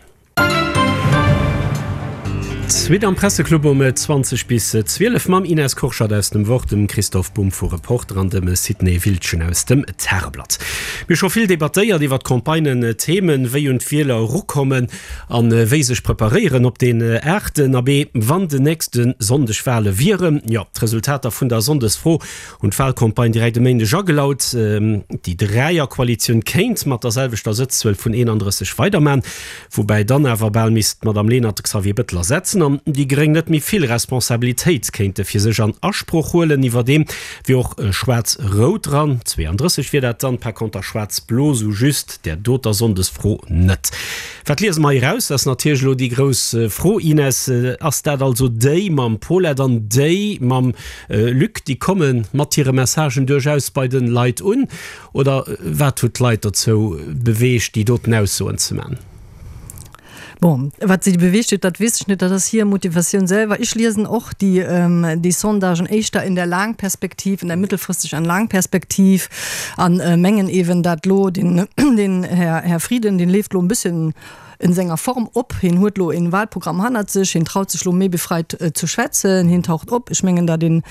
D'Suite am Presseclub um 20 bis 12 mam Ines Kurschat aus dem Wort, dem Christoph Bumb vu Reporter an dem Sidney Wildgen aus dem Tageblatt. Mir hu scho vill debattéiert iwwer d'Campagnen, Themen, wéi un d'Wieler erukommen an wéi sech preparéieren op deen aachten. Abee, wann den nächste Sonndeg Wale wieren. Jo, d'Resultater vun der Sonndesfro hunn d'Walcampagne direkt e Méindeg agelaut. Déi Dräierkoalitioun kéint mat der selwechter Sëtzzuel vun 31 weiderman, woubäi dann awer bal misst d'Madame Lenert de Xavier Bettel ersetzen an déi Gréng net méi vill Responsabilitéit kéinte fir sech an Asproch huelen. Iwwerdeem wier och Schwaarz-Rout dran, 32 wier dat dann, par conter Schwaarz-Blo sou just där doter Sonndesfro net. Wat liese mer hei eraus? Dat ass natierlech elo déi grouss Fro, Ines. Ass dat also déi mam Paulette an déi mam Luc, déi komme mat hire Messagen duerchaus bei de Leit un? Oder wat huet d'Leit dozou beweegt, déi doten Aussoen ze man? Bon, wat si beweegt huet, dat weess ech net, dat ass hir Motivatioun selwer. Ech liesen och déi, déi Sondagen éischter in der Laangperspektiv, in der mittelfristeg an Laangperspektiv an mengen eeben, dat lo den, den Här, Här Frieden, deen leeft lo e bësschen en senger Form op. Hien huet lo en Wahlprogramm hannert sech, hien traut sech lo méi befreit ze schwätzen, hien taucht op. Ech mengen, dat een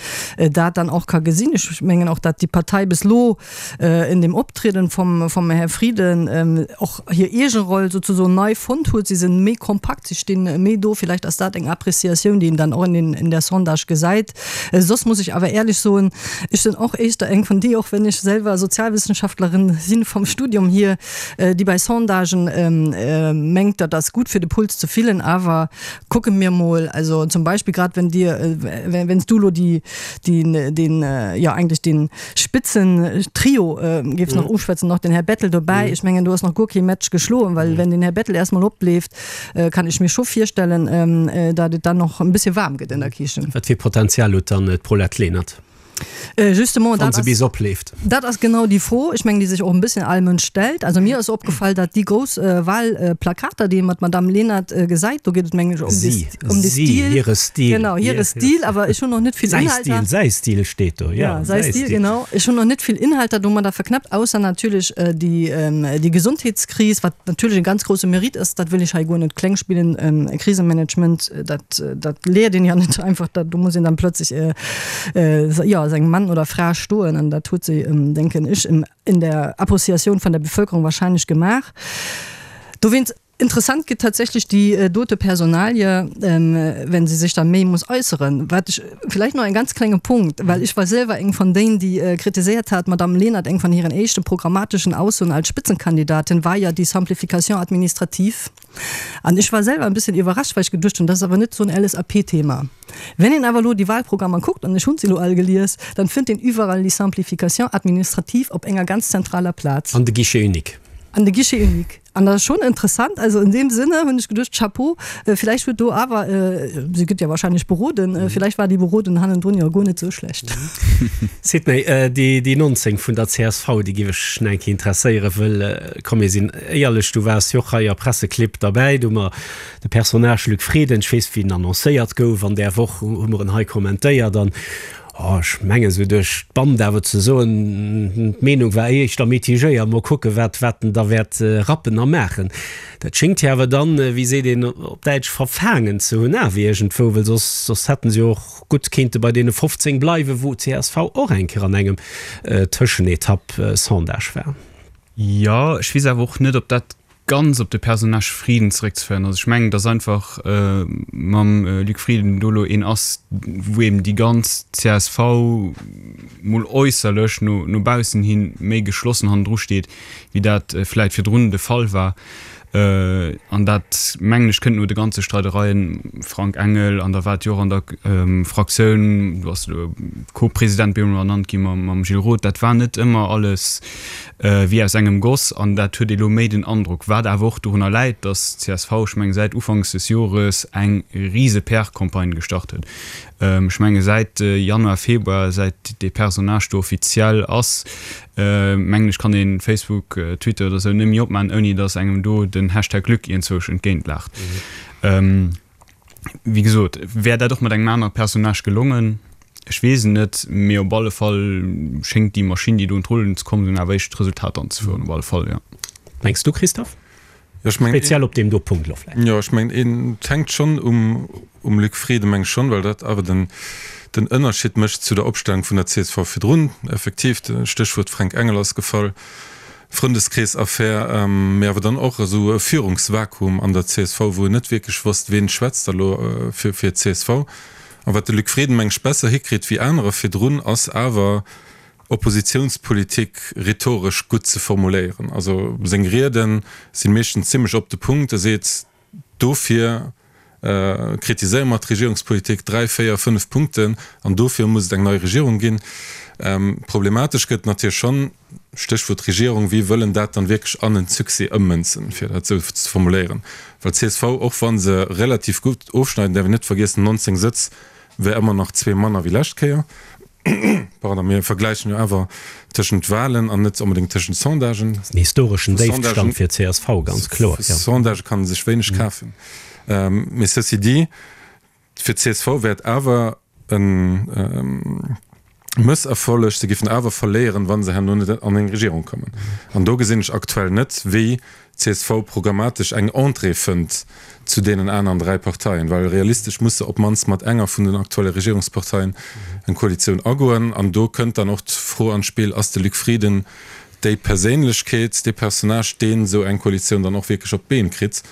dat dann och ka gesinn. Ech mengen och, dat déi Partei bis lo in dem Optrieden vom, vom Här Frieden och hir eege Roll sozusoen nei fonnt huet. Si sinn méi kompakt, si stinn méi do. Villäicht ass dat eng Appréciatioun, déi een dann och in den, in der Sondage gesäit. Soss muss ech awer éierlech soen, ech sinn och éischter eng vun déi, och wenn ech selwer Sozialwissenschaftlerin sinn vom Studium hier, déi bei Sondagen mengt, dat ass gutt fir de Puls ze fillen, awer kucke mir mol, also zum Beispill grad wenn Dir, wenn s du elo déi, deen, deen, jo eigentlech dee Spitzentrio géifs nach uschwätzen, nach den Här Bettel dobäi, ech mengen do ass nach guer kee Match geschloen, well wenn den Här Bettel erst mol opleeft, kann ech mir scho virstellen, datt et dann och e bëssche waarm gëtt an der Kichen. Wat fir Potenzial huet dann d'Paulette Lenert? Justement, dat ass, opleeft. Dat ass genau déi Fro, ech mengen, déi sech och e bësschen all Mënsch stellt. Also mir ass opgefall, datt déi grouss Wahlplakater, déi ee mat Madamm Lenert gesäit, do geet et mengen ech ëm de, ëm de Stil. Hire Stil. Genau, hire Stil, awer ech hunn och net vill Inhalter. Säi Stil, säi Stil steet do, jo. Säi Stil, genau. Ech hunn och net vill Inhalter domadder verknäppt, ausser natierlech déi, déi Gesondheetskris, wat natierlech e ganz grousse Mérite ass, dat wëll ech hei guer net kleng spillen, Krisemanagement, dat, dat léiert een jo net einfach, dat, do muss een dann plötzlich jo, sengem Mann oder Fra stoen an dat huet se, denken ech, in der Appreciatioun vun der Bevölkerung wahrscheinlech gemaach. Dowéinst interessant gëtt tatsächlech déi dote Personalie, wenn se sech da méi muss äusseren. Wat ech vläicht nach e ganz klenge Punkt, well ech war selwer eng vun dénen, déi kritiséiert hat, d'Madame Lenert, eng vun hiren éischte programmatischen Aussoen als Spitzenkandidatin war ja déi Simplification administrative. An ech war selwer e bësschen iwwerrascht, well ech geduecht hunn, dat ass awer net esou en LSAP-Thema. Wenn een awer elo déi Wahlprogrammer kuckt, an ech hunn se elo all gelies, dann fënnt een iwwerall déi Simplification administrative op enger ganz zentraler Plaz. An de Guichet unique. An de Guichet unique. An dat ass schonn interessant. Also in deem Sinne hunn ech geduecht, Chapeau, villäicht huet do awer, si gëtt jo wahrscheinlech beroden, villäicht war déi Berodung hannendrun jo guer net esou schlecht. Sidney, déi 19 vun der csv, déi géif ech nach eng Kéier interesséieren, wëll, komm mir sinn éierlech, du waars jo och hei a Presseclibb derbäi, do hu mer de Personnage Luc Frieden, ech weess wéi en annoncéiert gouf an där Woch, hu mer en hei kommentéiert an, oh, ech mengen esou duerch d'Band awer ze soen, d'Meenung war éischter mitigéiert, mol kucke wat wat en da wäert rappen a maachen. Dat schéngt hie awer dann, wéi seet een op Däitsch, verfaangen ze hunn awer iergendwou, well soss soss hätten se jo och gutt kéinte bei deene 15 bleiwen, wou csv och eng Kéier an engem Tëschenetapp-Sondage war. Jo, ech weess awer och net, ob dat ganz op de Personnage Frieden zeréckzeféieren ass. Ech mengen, datt einfach mam Luc Frieden do elo een ass, wou eben déi ganz csv mol äusserlech no no baussen hi méi geschlossen hannendru steet, wéi dat vläit virdrun de Fall war. An dat, mengen ech, kënnt no de ganze Streidereien, Frank Engel, an da war et jo och an der Fraktioun, do ass elo Co-President bemol ernannt gi mam Gilles Roth, dat war net ëmmer alles wéi aus engem Goss. An dat huet ee lo méi den Androck, wat awer och dorunner läit, datt csv, ech menge säit ufanks des Jores eng rise PR-Campagne gestart huet. Ech menge säit Januar, Februar, säit dee Personnage do offiziell ass, mengen ech, kann een Facebook, Twitter oder sou net méi opmaan, ouni dass engem do den Hashtag Luc iergendzwousch entgéint laacht. Wéi gesot, wär dat och mat engem anere Personnage gelongen? Ech weess et net, mee op alle Fall schéngt déi Maschinn, déi do un d'Rullen ze komm sinn, awer éischt Resultater anzefueren, op alle Fall, jo. Mengs du, Christophe? Speziell op deem do Punkt elo vläicht. Jo, ech mengen, et hänkt schonn um um Luc Frieden, meng ech schonn, well dat awer den den Ënnerscheed mécht zu der Opstellung vun der csv virdrun. Effektiv, de Stéchwuert Fränk Engel ass gefall, Frëndeskrees-Affär, mee awer dann och esou e Führungsvakuum an der csv, wou een net wierklech wosst, ween schwätzt da elo fir fir d'CSV. A wat de Luc Frieden, meng ech, besser hikritt wéi anerer virdrun, ass awer, Oppositiounspolitik rhetoresch gutt ze formuléieren. Also seng Riede si meeschtens zimmlech op de Punkt. E seet, dofir kritiséiere mer d'Regierungspolitik, dräi, véier, fënnef Punkten, an dofir muss et eng nei Regierung ginn. Problematesch gëtt et natierlech schonn, Stéchwuert Regierung, wie wëllen dat dann wierklech an en Succès ëmmënzen, fir dat esou ze formuléieren. Well csv, och wa se relativ gutt ofschneiden, däerf een net vergiessen, 19 Sëtz wär ëmmer nach zwee manner wéi lescht Kéier. Pardon, mir vergläichen jo awer tëschent Wahlen an net onbedéngt tëschent Sondagen. Dat ass en historeschen Déifstand fir csv, ganz kloer, jo. Sondagë kann ee sech wéineg kafen. Mee ceci dit, fir csv wär et awer e Mësserfolleg, se géifen awer verléieren, wa se herno net an eng Regierung kommen. An do gesinn ech aktuell net, wéi csv programmatesch eng Entrée fënnt zu deenen aneren 3 Parteien, well realistesch muss se op d'mannst mat enger vun den aktuelle Regierungsparteien eng Koalitioun agoen. An do kënnt dann och d'Fro an d'Spill, Ass de Luc Frieden déi Perséinlechkeet, dee Personnage, deen esou eng Koalitioun dann och wierklech op d'Been kritt?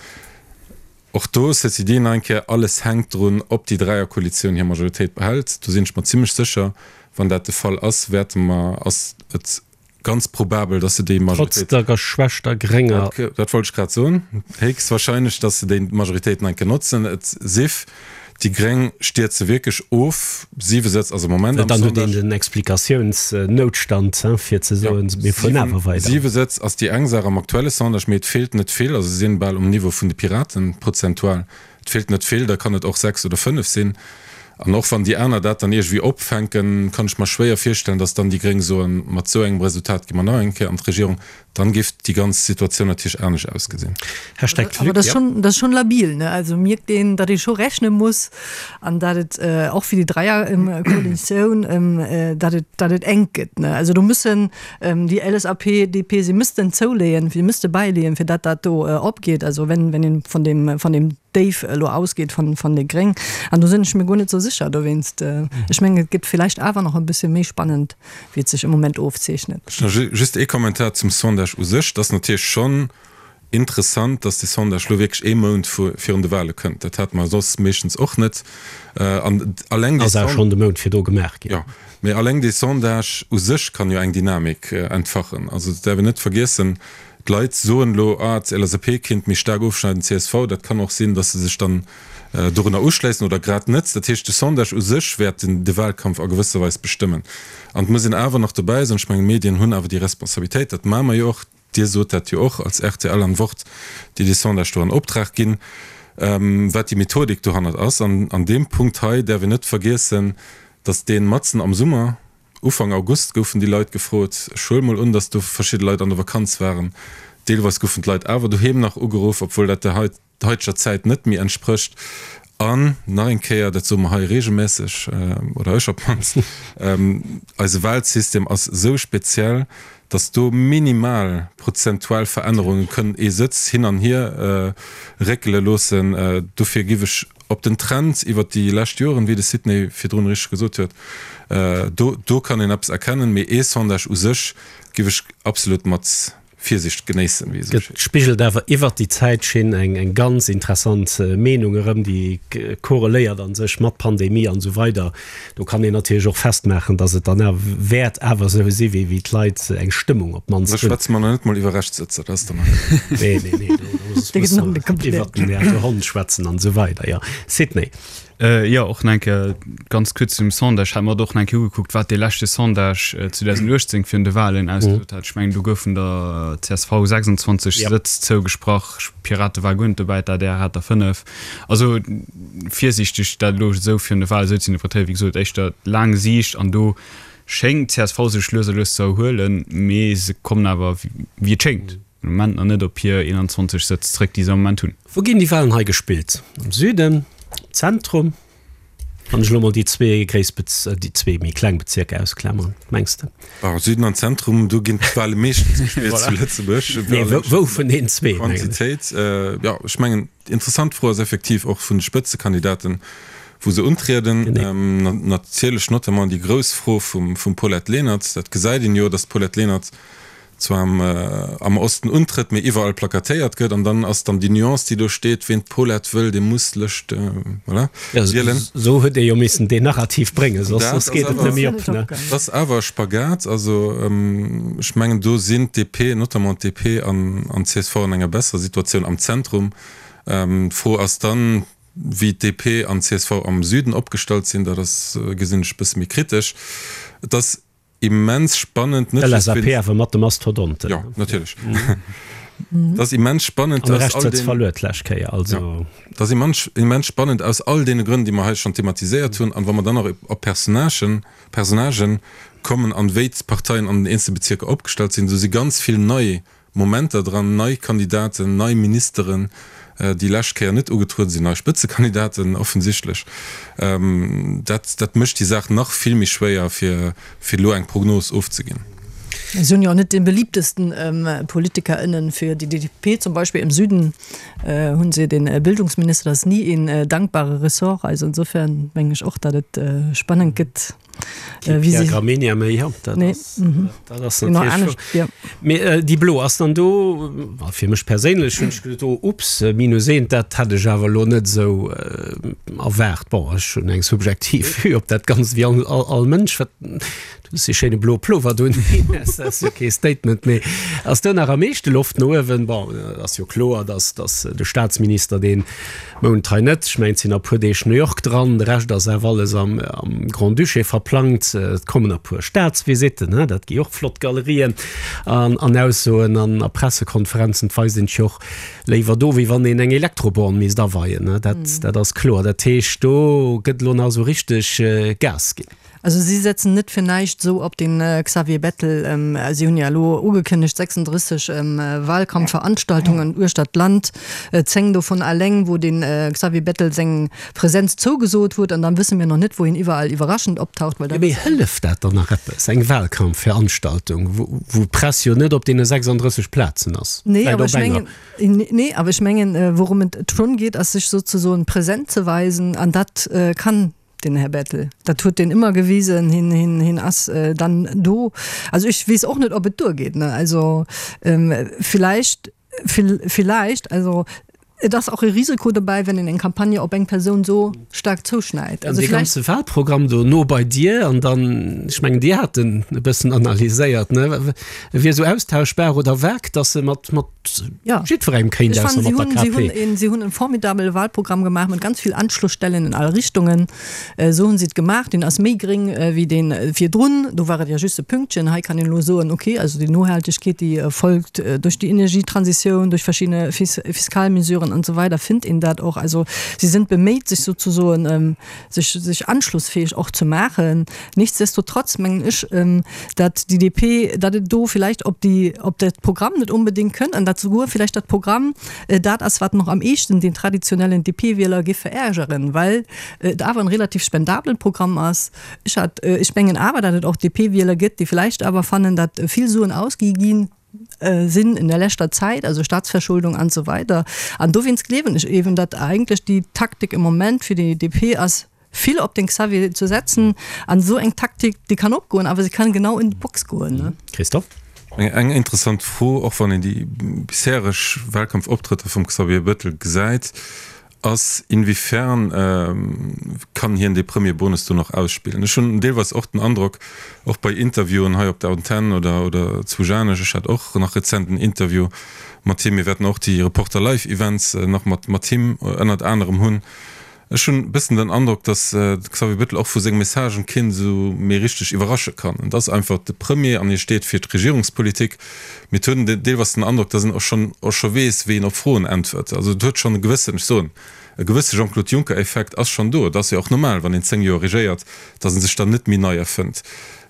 Och do, ceci dit, nach eng Kéier, alles hänkt drun, ob déi Dräierkoalitioun hir Majoritéit behält. Do sinn ech mer zimmlech sécher, wann dat de Fall ass, wäerte mer, ass et Ganz probabel, dass se déi Majoritéit. Trotz der geschwächter grénger. Dat wollt ech grad soen. Héchstwahrscheinlech, dass se déi Majoritéit nach eng Kéier notzen. Et sief, déi Gréng stierze wierklech of. Siwe Sëtz ass am Moment am Sondage. Dann huet een den Explikatiounsnoutstand, fir ze soen, mir fueren awer weider. Siwe Sëtz ass déi eng Saach am aktuelle Sondage, mee et feelt net vill. Also se sinn bal um Niveau vun de Piraten, prozentual. Et feelt net vill, da kann et och 6 oder 5 sinn. An och wann déi aner dat dann iergendwéi opfänken, kann ech mer schwéier virstellen, datt dann déi Gréng soen, mat esou engem Resultat gi mer nach eng Kéier an d'Regierung. Dann géif déi ganz Situatioun natierlech anescht ausgesinn. Hashtag Awer dat ass schonn, dat ass schonn labil, ne? Also mierkt een, datt ee scho rechne muss an datt et och fir déi Dräierkoalitioun, datt et, datt et enk gëtt, ne? Also do mussen déi LSAP, DP, si müssten zouleeën, si müsste bäileeën, fir datt dat do opgeet. Also wenn, wenn een vun deem, vun deem Déif elo ausgeet von, von de Gréng. An do sinn ech mir guer net sou sécher dowéinst. Ech mengen, et gëtt villäicht awer nach e bësse méi spannend, wéi et sech am Moment ofzeechnet. Just ee Kommentar zum Sondage u sech. Et ass natierlech schonn interessant, dass dee Sondage elo wierklech ee Mount virun de Wahle kënnt. Dat hate mer soss meeschtens och net. An alleng dee. Ass awer schonn de Mount virdu gemaach ginn. Jo, mee alleng dee Sondage u sech kann jo eng Dynamik entfachen. Also et däerf een net vergiessen, d'Leit soen elo, ah, d'LSAP kéint méi staark ofschneiden, csv. Dat kann och sinn, dass se sech dann dorunner uschléissen oder grad net. Dat heescht, de Sondage u sech wäert de Wahlkampf a gewësser Weis bestëmmen. An et muss een awer nach dobäi soen, ech mengen, d'Medien hunn awer déi Responsabilitéit, dat maache mer jo och, Dir sot dat jo och als rtl an Wort, déi dee Sondage do an Optrag ginn, wat déi Methodik dohannert ass. An an deem Punkt hei däerf een net vergiessen, datt dee matzen am Summer, Ufank August goufen déi Leit gefrot, ech huele mol un, datt do verschidde Leit an der Vakanz waren, deelweis goufen d'Leit awer doheem nach ugeruff, obwuel dat der haiteger Zäit net méi entsprécht. An nach eng Kéier, dat soe mer hei regelmässeg, oder ech op d'mannst, eise Wahlsystem ass esou speziell, datt do minimal prozentual Verännerunge kënnen ee Sëtz hin an hier réckele loossen. Dofir giff ech op den Trend iwwert déi lescht Joren, wéi de Sidney virdrun richteg gesot huet, do do kann een eppes erkennen, mee ee Sondage u sech giff ech absolut mat Virsicht genéissen, wéi esou schéin. Spigelt awer iwwert déi Zäitschinn eng eng ganz interessant Meenung erëm, déi korreléiert a sech mat Pandemie an esou weider. Do kann een natierlech och festmaachen, datt et dann awer wäert awer esou si wéi wéi d'Leit eng Stëmmung op d'mannst hunn. Da schwätze mer nach net mol iwwer Rechtssëtzer, dat ass dann nach. Nee, nee, nee, do. Iwwer den Här Hond schwätzen an esou weider. Jo, Sidney. Jo, och nach eng Kéier ganz kuerz zum Sondage. Ech hat mer och nach eng Kéier ugekuckt, wat dee leschte Sondage 2018 virun de Wahlen ausgesot hat. Ech mengen, do goufen der csv 26 Sëtz zougesprach, d'Pirate ware guer net dobäi, d'ADR hat der 5. Also virsiichteg dat elo esou virun de Wahlen esou ze interpretéieren, wéi gesot, éischter laang Siicht an do schéngt d'CSV sech lues a lues ze erhuelen, mee se kommen awer, wéi et schéngt, am Moment nach net op hir 21 Sëtz zréck, déi se am Moment hunn. Wou ginn déi Wahlen hei gespillt? Am Süden? Am Zentrum? Wann ech elo mol déi zwee gréiss Bez-, déi zwee méi kleng Bezierker ausklammern, mengs de? Bon, Süden an Zentrum, do ginn d'Wahle meeschtens gespillt zu Lëtzebuerg. Nee, wou, wou vun deenen zwee, mengen ech. Quantitéit, jo, ech mengen, déi interessant Fro ass effektiv och vun de Spëtzekandidaten, wou se untrieden. Natierlech notamment déi grouss Fro vum, vum Paulette Lenert. Dat gesäit een jo, datt d'Paulette Lenert zwar am am Osten untrëtt, mee iwwerall plakatéiert gëtt, an dann ass dann déi Nuance, déi do steet, ween d'Paulette wëll, dee muss lech, voilà, wielen. Esou huet ee jo missen deen Narrativ bréngen, soss soss geet et net méi op, ne? Dat ass awer e Spagat. Also ech mengen, do sinn d'DP, notamment d'DP an an d'CSV an enger besserer Situatioun am Zentrum. D'Fro ass dann, wéi d'DP an d'CSV am Süden opgestallt sinn. Dat ass, gesinn ech e bësse méi kritesch. Et ass immens spannend, net just wéinst. LSAP awer mat de Mastodonten. Jo, natierlech. Et ass immens spannend aus all deenen. Verluer d'lescht Kéier, also. Jo, et ass immens, immens spannend aus all deene Grënn, déi mer hei schonn thematiséiert hunn. An wa mer dann nach op Personnagen, Personnagen kommen an wéi d'Parteien an den eenzele Bezierker opgestallt sinn, do si ganz vill nei Momenter dran, nei Kandidaten, nei Ministeren, déi lescht Kéier net ugetrueden sinn, nei Spëtzekandidaten offensichtlech. Dat, dat mécht déi Saach nach vill méi schwéier, fir, fir elo eng Prognos ofzeginn. Si hunn jo och net dee beliebtesten Politiker ënnen fir déi DP zum Beispill. Im Süden hunn se den Bildungsminister, dat ass ni een dankbare Ressort. Also insofern mengen ech och, datt et spannend gëtt. Äh, wie si Gramenia méi ja, dat nee. ass, mhm. dat ass natierlech ja. Mee äh, déi Blo ass dann do fir mech perséinlech hunn ech geduet, oh, ups, äh, minus eent, dat hat ech awer lo net esou äh, erwaart. Bon, ech hunn eng subjektiv Vue op dat Ganzt wéi all, all, all Mënsch. Wat, du hues dee schéine bloe Plover do, dat ass jo kee Statement, mee ass do nach am meeschte Loft no uewen? Bon, ass jo kloer, dass, dass de Staatsminister deen Mount hei net, ech mengen et sinn nach e puer Deeg New York dran, de Rescht ass awer alles am Grand-Duché verplangt. Et kommen e puer Staatsvisitten, dat gi och flott Galerien an Aussoen an a Pressekonferenzen. Et weist een sech jo och léiwer do, wéi wann een eng Elektroborn misst aweien, dat ass kloer. Dat heescht, do gëtt elo nach esou richteg Gas ginn. Also si setzen net fir näischt esou op den Xavier Bettel. Si hunn jo elo ugekënnegt 36 Wahlkampfveranstaltungen uechter d'Land, 10 dovun alleng wou de Xavier Bettel seng Präsenz zougesot huet. An dann wësse mir nach net wou hien iwwerall iwwerraschend optaucht, well dat. Mee hëlleft dat dann nach eppes, eng Wahlkampfveranstaltung, wou d'Press jo net op deene 36 Plazen ass? Nee, awer ech mengen, nee, awer ech mengen, wourëm et schonn geet, ass sech sozesoen present ze weisen an dat kann Den Här Bettel, dat huet deen ëmmer gewisen, hien, hien, hien ass dann do. Also ech weess och net, ob et duergeet, ne. Also villäicht, villäicht, also et ass och e Risiko dobäi, wenn een eng Campagne op eng Persoun esou staark zouschneit. Also dee ganze Wahlprogramm do no bei dir an dann, ech mengen, Dir hat en e bëssen analyséiert, ne, e wier esou austauschbar oder vag, datt e mat, mat Ja. Jiddwerengem kéint, ausser mat der KP. Si hunn een, si hunn en formidabele Wahlprogramm gemaach mat ganz vill Anschlussstellen in all Richtungen. Esou hunn si et gemaach. Deen ass méi gréng wéi dee virdrun. Do war et ja just e Pünktchen. Hei kann een elo soen, okay, also déi Nohaltegkeet, déi folgt duerch déi Energietransitioun, duerch verschidde Fiskalmesuren an esou weider, finnt een dat och. Also si sinn beméit, sech souzesoen, sech, sech anschlussfähig och ze maachen. Nichtsdestotrotz mengen ech, datt déi DP, datt et do vielleicht op déi, op dat Programm net onbedéngt kënnt an datt souguer vielleicht dat Programm dat ass, wat nach am eeschten den traditionellen DP-Wieler géif verärgeren, well et awer en relativ spendablen Programm ass. Ech hat, ech mengen awer, datt et och DP-Wieler gëtt, déi vielleicht awer fannen, datt vill Suen ausgi ginn sinn in der leschter Zäit, also Staatsverschuldung an esou weider. An dowéinst gleewen ech eeben, datt eigentlech déi Taktik im Moment fir déi DP ass, vill op den Xavier ze setzen. An esou eng Taktik, déi kann opgoen, awer se kann genau in d'Box goen. Christophe? Eng interessant Fro, och wann een déi bishereg Wahlkampfoptrëtter vum Xavier Bettel gesäit. Ass, inwiefern kann hien dee Premier-Bonus do nach ausspillen? Ech hunn deelweis och den Androck, och bei Interviewen hei op der Antenn oder oder zu Janesch, ech hat och nach rezent en Interview mat him, mir wäerten och déi Reporter Live Events nach mat mat him ënnert anerem hunn, ech hunn e bëssen den Androck, datt de Xavier Bettel och vu senge Messagen keen esou méi richteg iwwerrasche kann. Et ass einfach de Premier an hie steet fir d'Regierungspolitik. Mee et huet een deelweis den Androck, datt en och schonn och scho weess, wéi en op Froen äntwert. Also et huet schonn e gewëssen, ech soen, e gewësse Jean-Claude Juncker-Effekt ass schonn do. Et ass jo och normal, wann een 10 Joer regéiert, datt e sech dann net méi nei erfënnt.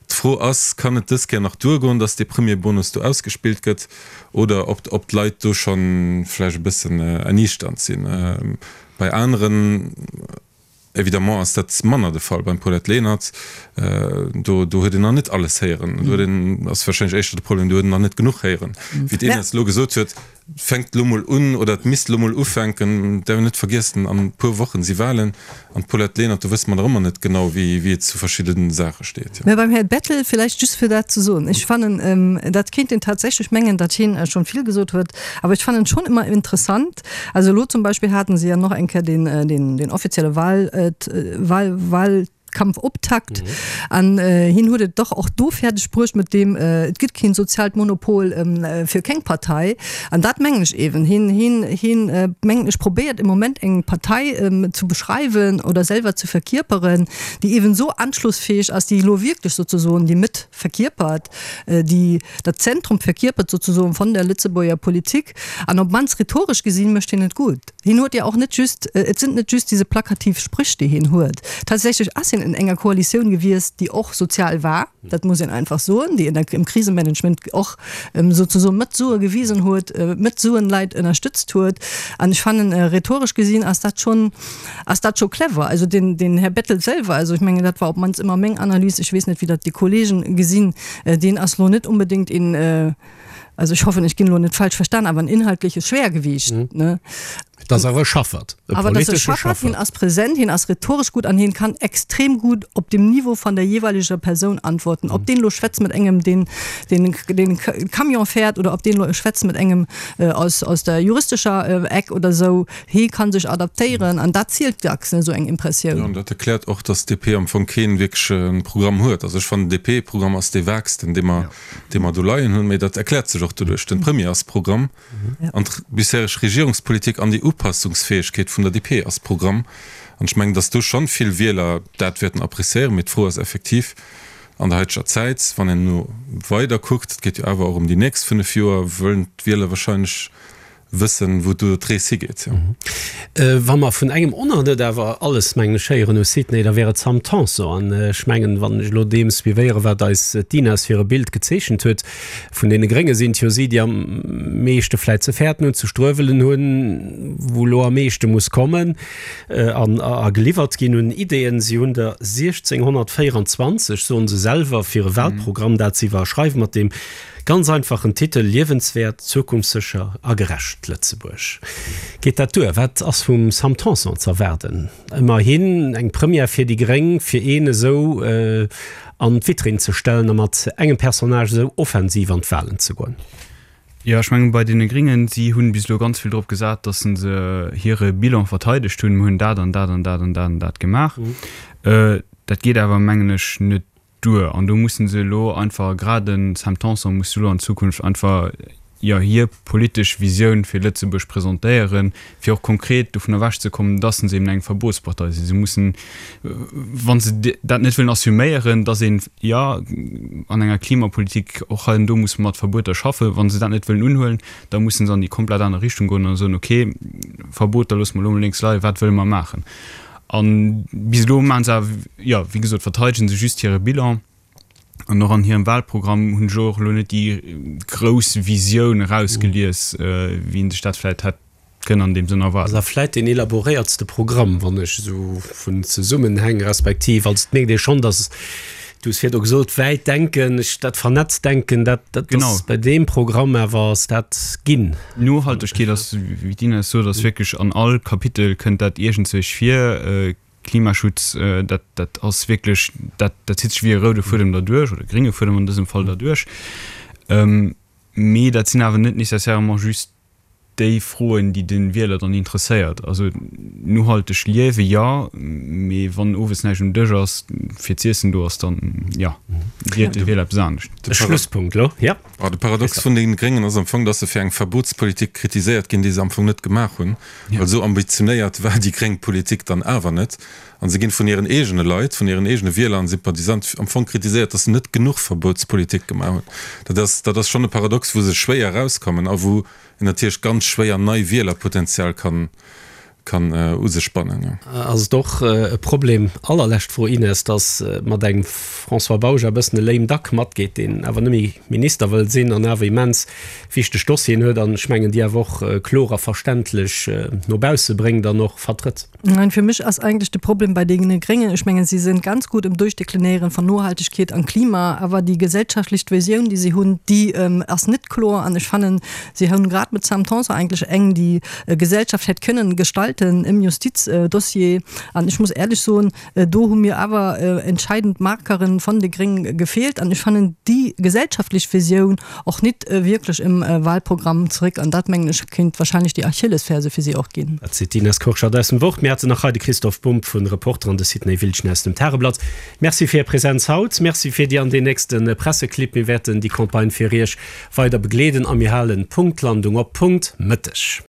D'Fro ass, Kann et dës Kéier nach duergoen, datt dee Premier-Bonus do ausgespillt gëtt, oder ob ob d'Leit do scho vläicht e bëssen erniichternd sinn? Bei aneren. Évidemment ass dat manner de Fall beim Paulette Lenert. Do, do huet een nach net alles héieren. Do huet een, ass warscheinlech éischter de Problem, do huet een nach net genuch héieren. Wéi d'Ines elo gesot huet, et fänkt elo mol un oder et misst elo mol ufänken. Et däerf een net vergiessen, an e puer Wochen si Wahlen. An d'Paulette Lenert, do wësse mer nach ëmmer net genau, wéi, wéi et zu verschidde Saache steet. Mä beim Här Bettel villäicht just fir dat ze soen, ech fannen, dat kéint een tatsächlech mengen, datt hien schonn vill gesot huet, awer ech fannen schonn ëmmer interessant, Also elo zum Beispill haten se ja noch eng Kéier den, den, den offizielle Wahl, Wahl, Wahlkampfoptakt an hien huet et dach och do fäerdeg bruecht mat deem, et gëtt keen soziaalt Monopol fir keng Partei. An dat mengen ech eeben. Hien, hien, hien mengen ech probéiert im Moment eng Partei zu beschreiwen oder selwer ze verkierperen, déi eeben esou anschlussfähig ass, déi elo wierklech sozesoen déi Mëtt verkierpert, déi dat Zentrum verkierpert sozesoen von der Lëtzebuerger Politik. An op d'mannst rhetoresch gesinn mécht hien et gutt. Hien huet jo och net just, et sind net just diese plakativ Sprüch, déi hien huet. Tatsächlech ass hien en enger Koalitioun gewiesst, déi och sozial war, dat muss een einfach soen, déi im Krisemanagement och sozesoen mat Sue gewisen huet, mat Suen Leit ënnerstëtzt huet. An ech fannen, rhetoresch gesinn ass dat schonn, ass dat scho clever. Also den, den Här Bettel selwer, also ech mengen, dat war op d'mannst ëmmer meng Analys, ech weess net, wéi dat déi Kollegen gesinn, deen ass lo net unbedéngt een, also ech hoffen, ech ginn elo net falsch verstan, awer en inhaltliches Schwergewicht, ne? Et ass awer e Schaffert, e Awer et ass e politesche Schaffert, hien ass präsent, hien ass rhetoresch gutt an hien kann extrem gut op dem Niveau van der jeeweileger Persoun antworten. Ob deen elo schwätzt mat engem, deen, deen, deen Camion fährt oder ob deen elo schwätzt mat engem aus, aus der juristescher Eck oder esou, Hee kann sech adaptéieren an dat zielt dacks, ne, esou eng Impressioun. Jo, an dat erkläert och, dass d'DP am Fong kee wierkleche Programm huet. Also ech fannen, den DP-Programm ass dee vaagsten, dee mer, dee mer do leien hunn. Mee dat erkläert sech och doduerch, den Premier ass Programm an d'bishereg Regierungspolitik an déi Upassungsfäegkeet vun der DP ass Programm. An ech mengen, dass do schonn vill Wieler dat wäerten appréciéieren. Mee d'Fro ass effektiv an der haiteger Zäit, wann een elo weider kuckt, et geet jo awer och ëm déi nächst 5 Joer, wëllen d'Wieler wahrscheinlech wëssen, wou do d'Rees higeet. Wa mer vun engem och nach net awer alles, mengen ech, héieren hu, Sidney, da wär et Sam Tanson. An ech mengen, wann ech elo deem suivéieren, wat eis d'Ines fir e Bild gezeechent huet, vun deene Grénge sinn et jo si, déi am meeschte vläicht ze fäerten hunn, ze struewelen hunn, wou elo am meeschte muss kommen an a geliwwert ginn un Ideeën. Si hunn der 1624, soen se selwer, fir e Wahlprogramm, dat se iwwerschreiwen, mat deem Ganz einfachen Titel, Liewenswäert, zukunftssécher a gerecht Lëtzebuerg. Geet dat duer? Wat ass vum Sam Tanson z'erwaarden? Ëmmerhin eng Première fir déi gréng, fir een esou an d'Vitrinn ze stellen a mat engem Personnage esou offensiv an d'Walen ze goen. Jo, ech mengen, bei deene Gréngen, si hunn bis elo ganz vill drop gesat, datt se hire Bilan verteidegt hunn, Mir hunn dat an dat an dat an dat an dat gemaach. Dat geet awer, mengen ech, net duer an do mussen se elo einfach, grad den Sam Tanson muss elo an Zukunft einfach, jo, hir politesch Visioun fir Lëtzebuerg presentéieren, fir och konkret dovun ewech ze kommen, dass se eben eng Verbotspartei sinn. Se mussen, wa se dat net wëllen assuméieren, dass een, jo, an enger Klimapolitik och hei an do muss mat Verbueter schaffen, wa se dat net wëllen unhuelen, da mussen se an déi komplett aner Richtung goen a soen, okay, Verboter loosse mer elo mol lénks leien, wat wëlle mer maachen? An bis elo maachen se awer, jo, wéi gesot, verteidegen se just hire Bilan. An och an hirem Wahlprogramm hunn ech och elo net déi grouss Visioun erausgelies, wéi een sech dat vläicht hätt kënnen an deem Sënn erwaarden. Ass awer vläicht deen elaboréiertste Programm, wann ech esou vun Zesummenhäng respektiv, also et mierkt ee schonn, datt, du hues virdu gesot, wäit denken, ech, dat vernetzt Denken, dat, dat ass bei deem Programm awer ass dat ginn. Nohaltegkeet ass, wéi d'Ines sot, ass wierklech an all Kapitel kënnt dat iergendzwousch vir. Klimaschutz, dat, dat ass wierklech, dat, dat zitt sech wéi e roude Fuedem derduerch, oder grénge Fuedem an dësem Fall derduerch. Mee dat sinn awer net nécessairement just. déi Froen, déi de Wieler dann interesséiert. Also nohalteg liewe jo, mee wann owes näischt um Dësch ass fir z'iessen do ass, dann jo, wielt de Wieler eppes anescht. De Schlusspunkt elo, jo. De Paradox vun den Gréngen ass am Fong, dass se fir eng Verbotspolitik kritiséiert ginn, déi se am Fong net gemaach hunn, well esou ambitionéiert war déi gréng Politik dann awer net. An se ginn vun hiren eegene Leit, vun hiren eegene Wieler an Sympathisanten am Fong kritiséiert, dass se net genuch Verbotspolitik gemaach hunn. Dat ass, dat ass schonn e Paradox, wou se schwéier erauskommen a wou een natierlech ganz schwéier nei Wielerpotenzial kann, kann u sech bannen. Ass et och e Problem, allerlescht Fro, Ines, dass mat engem François Bausch e bëssen e lame duck matgeet, deen awer net méi Minister wëll sinn an awer immens wichteg Dossieren huet an ech mengen déi awer och kloer a verständlech no bausse bréngt an och vertrëtt? Nein, fir mech ass eigentlech de Problem bei deene Gréngen, ech mengen, si sinn ganz gutt im Durchdeklinieren von Nohaltegkeet an Klima, awer déi gesellschaftlech Visioun, déi si hunn, déi ass net kloer. An ech fannen, si hunn grad mit Sam Tanson eigentlech eng, déi Gesellschaft hätt kënnen gestalten im Justizdossier. An ech muss éierlech soen, Do hu mir awer entscheidend Markeren von de Gréng gefeelt an ech fannen déi gesellschaftlech Visioun och nit wierklech im Wahlprogramm zeréck an dat mengen ech kéint wahrscheinlech déi Achillesferse fir si och ginn. Dat seet d'Ines Kurschat aus dem Wort. Mir haten nach hei de Christoph Bumb vun Reporter an de Sidney Wiltgen aus dem Tageblatt. Merci fir Är Präsenz haut. Merci fir déi an deen nächste Presseclip. Mir wäerten déi Campagne fir Iech weider begleeden a mir halen Punktlandung op Punkt Mëtteg.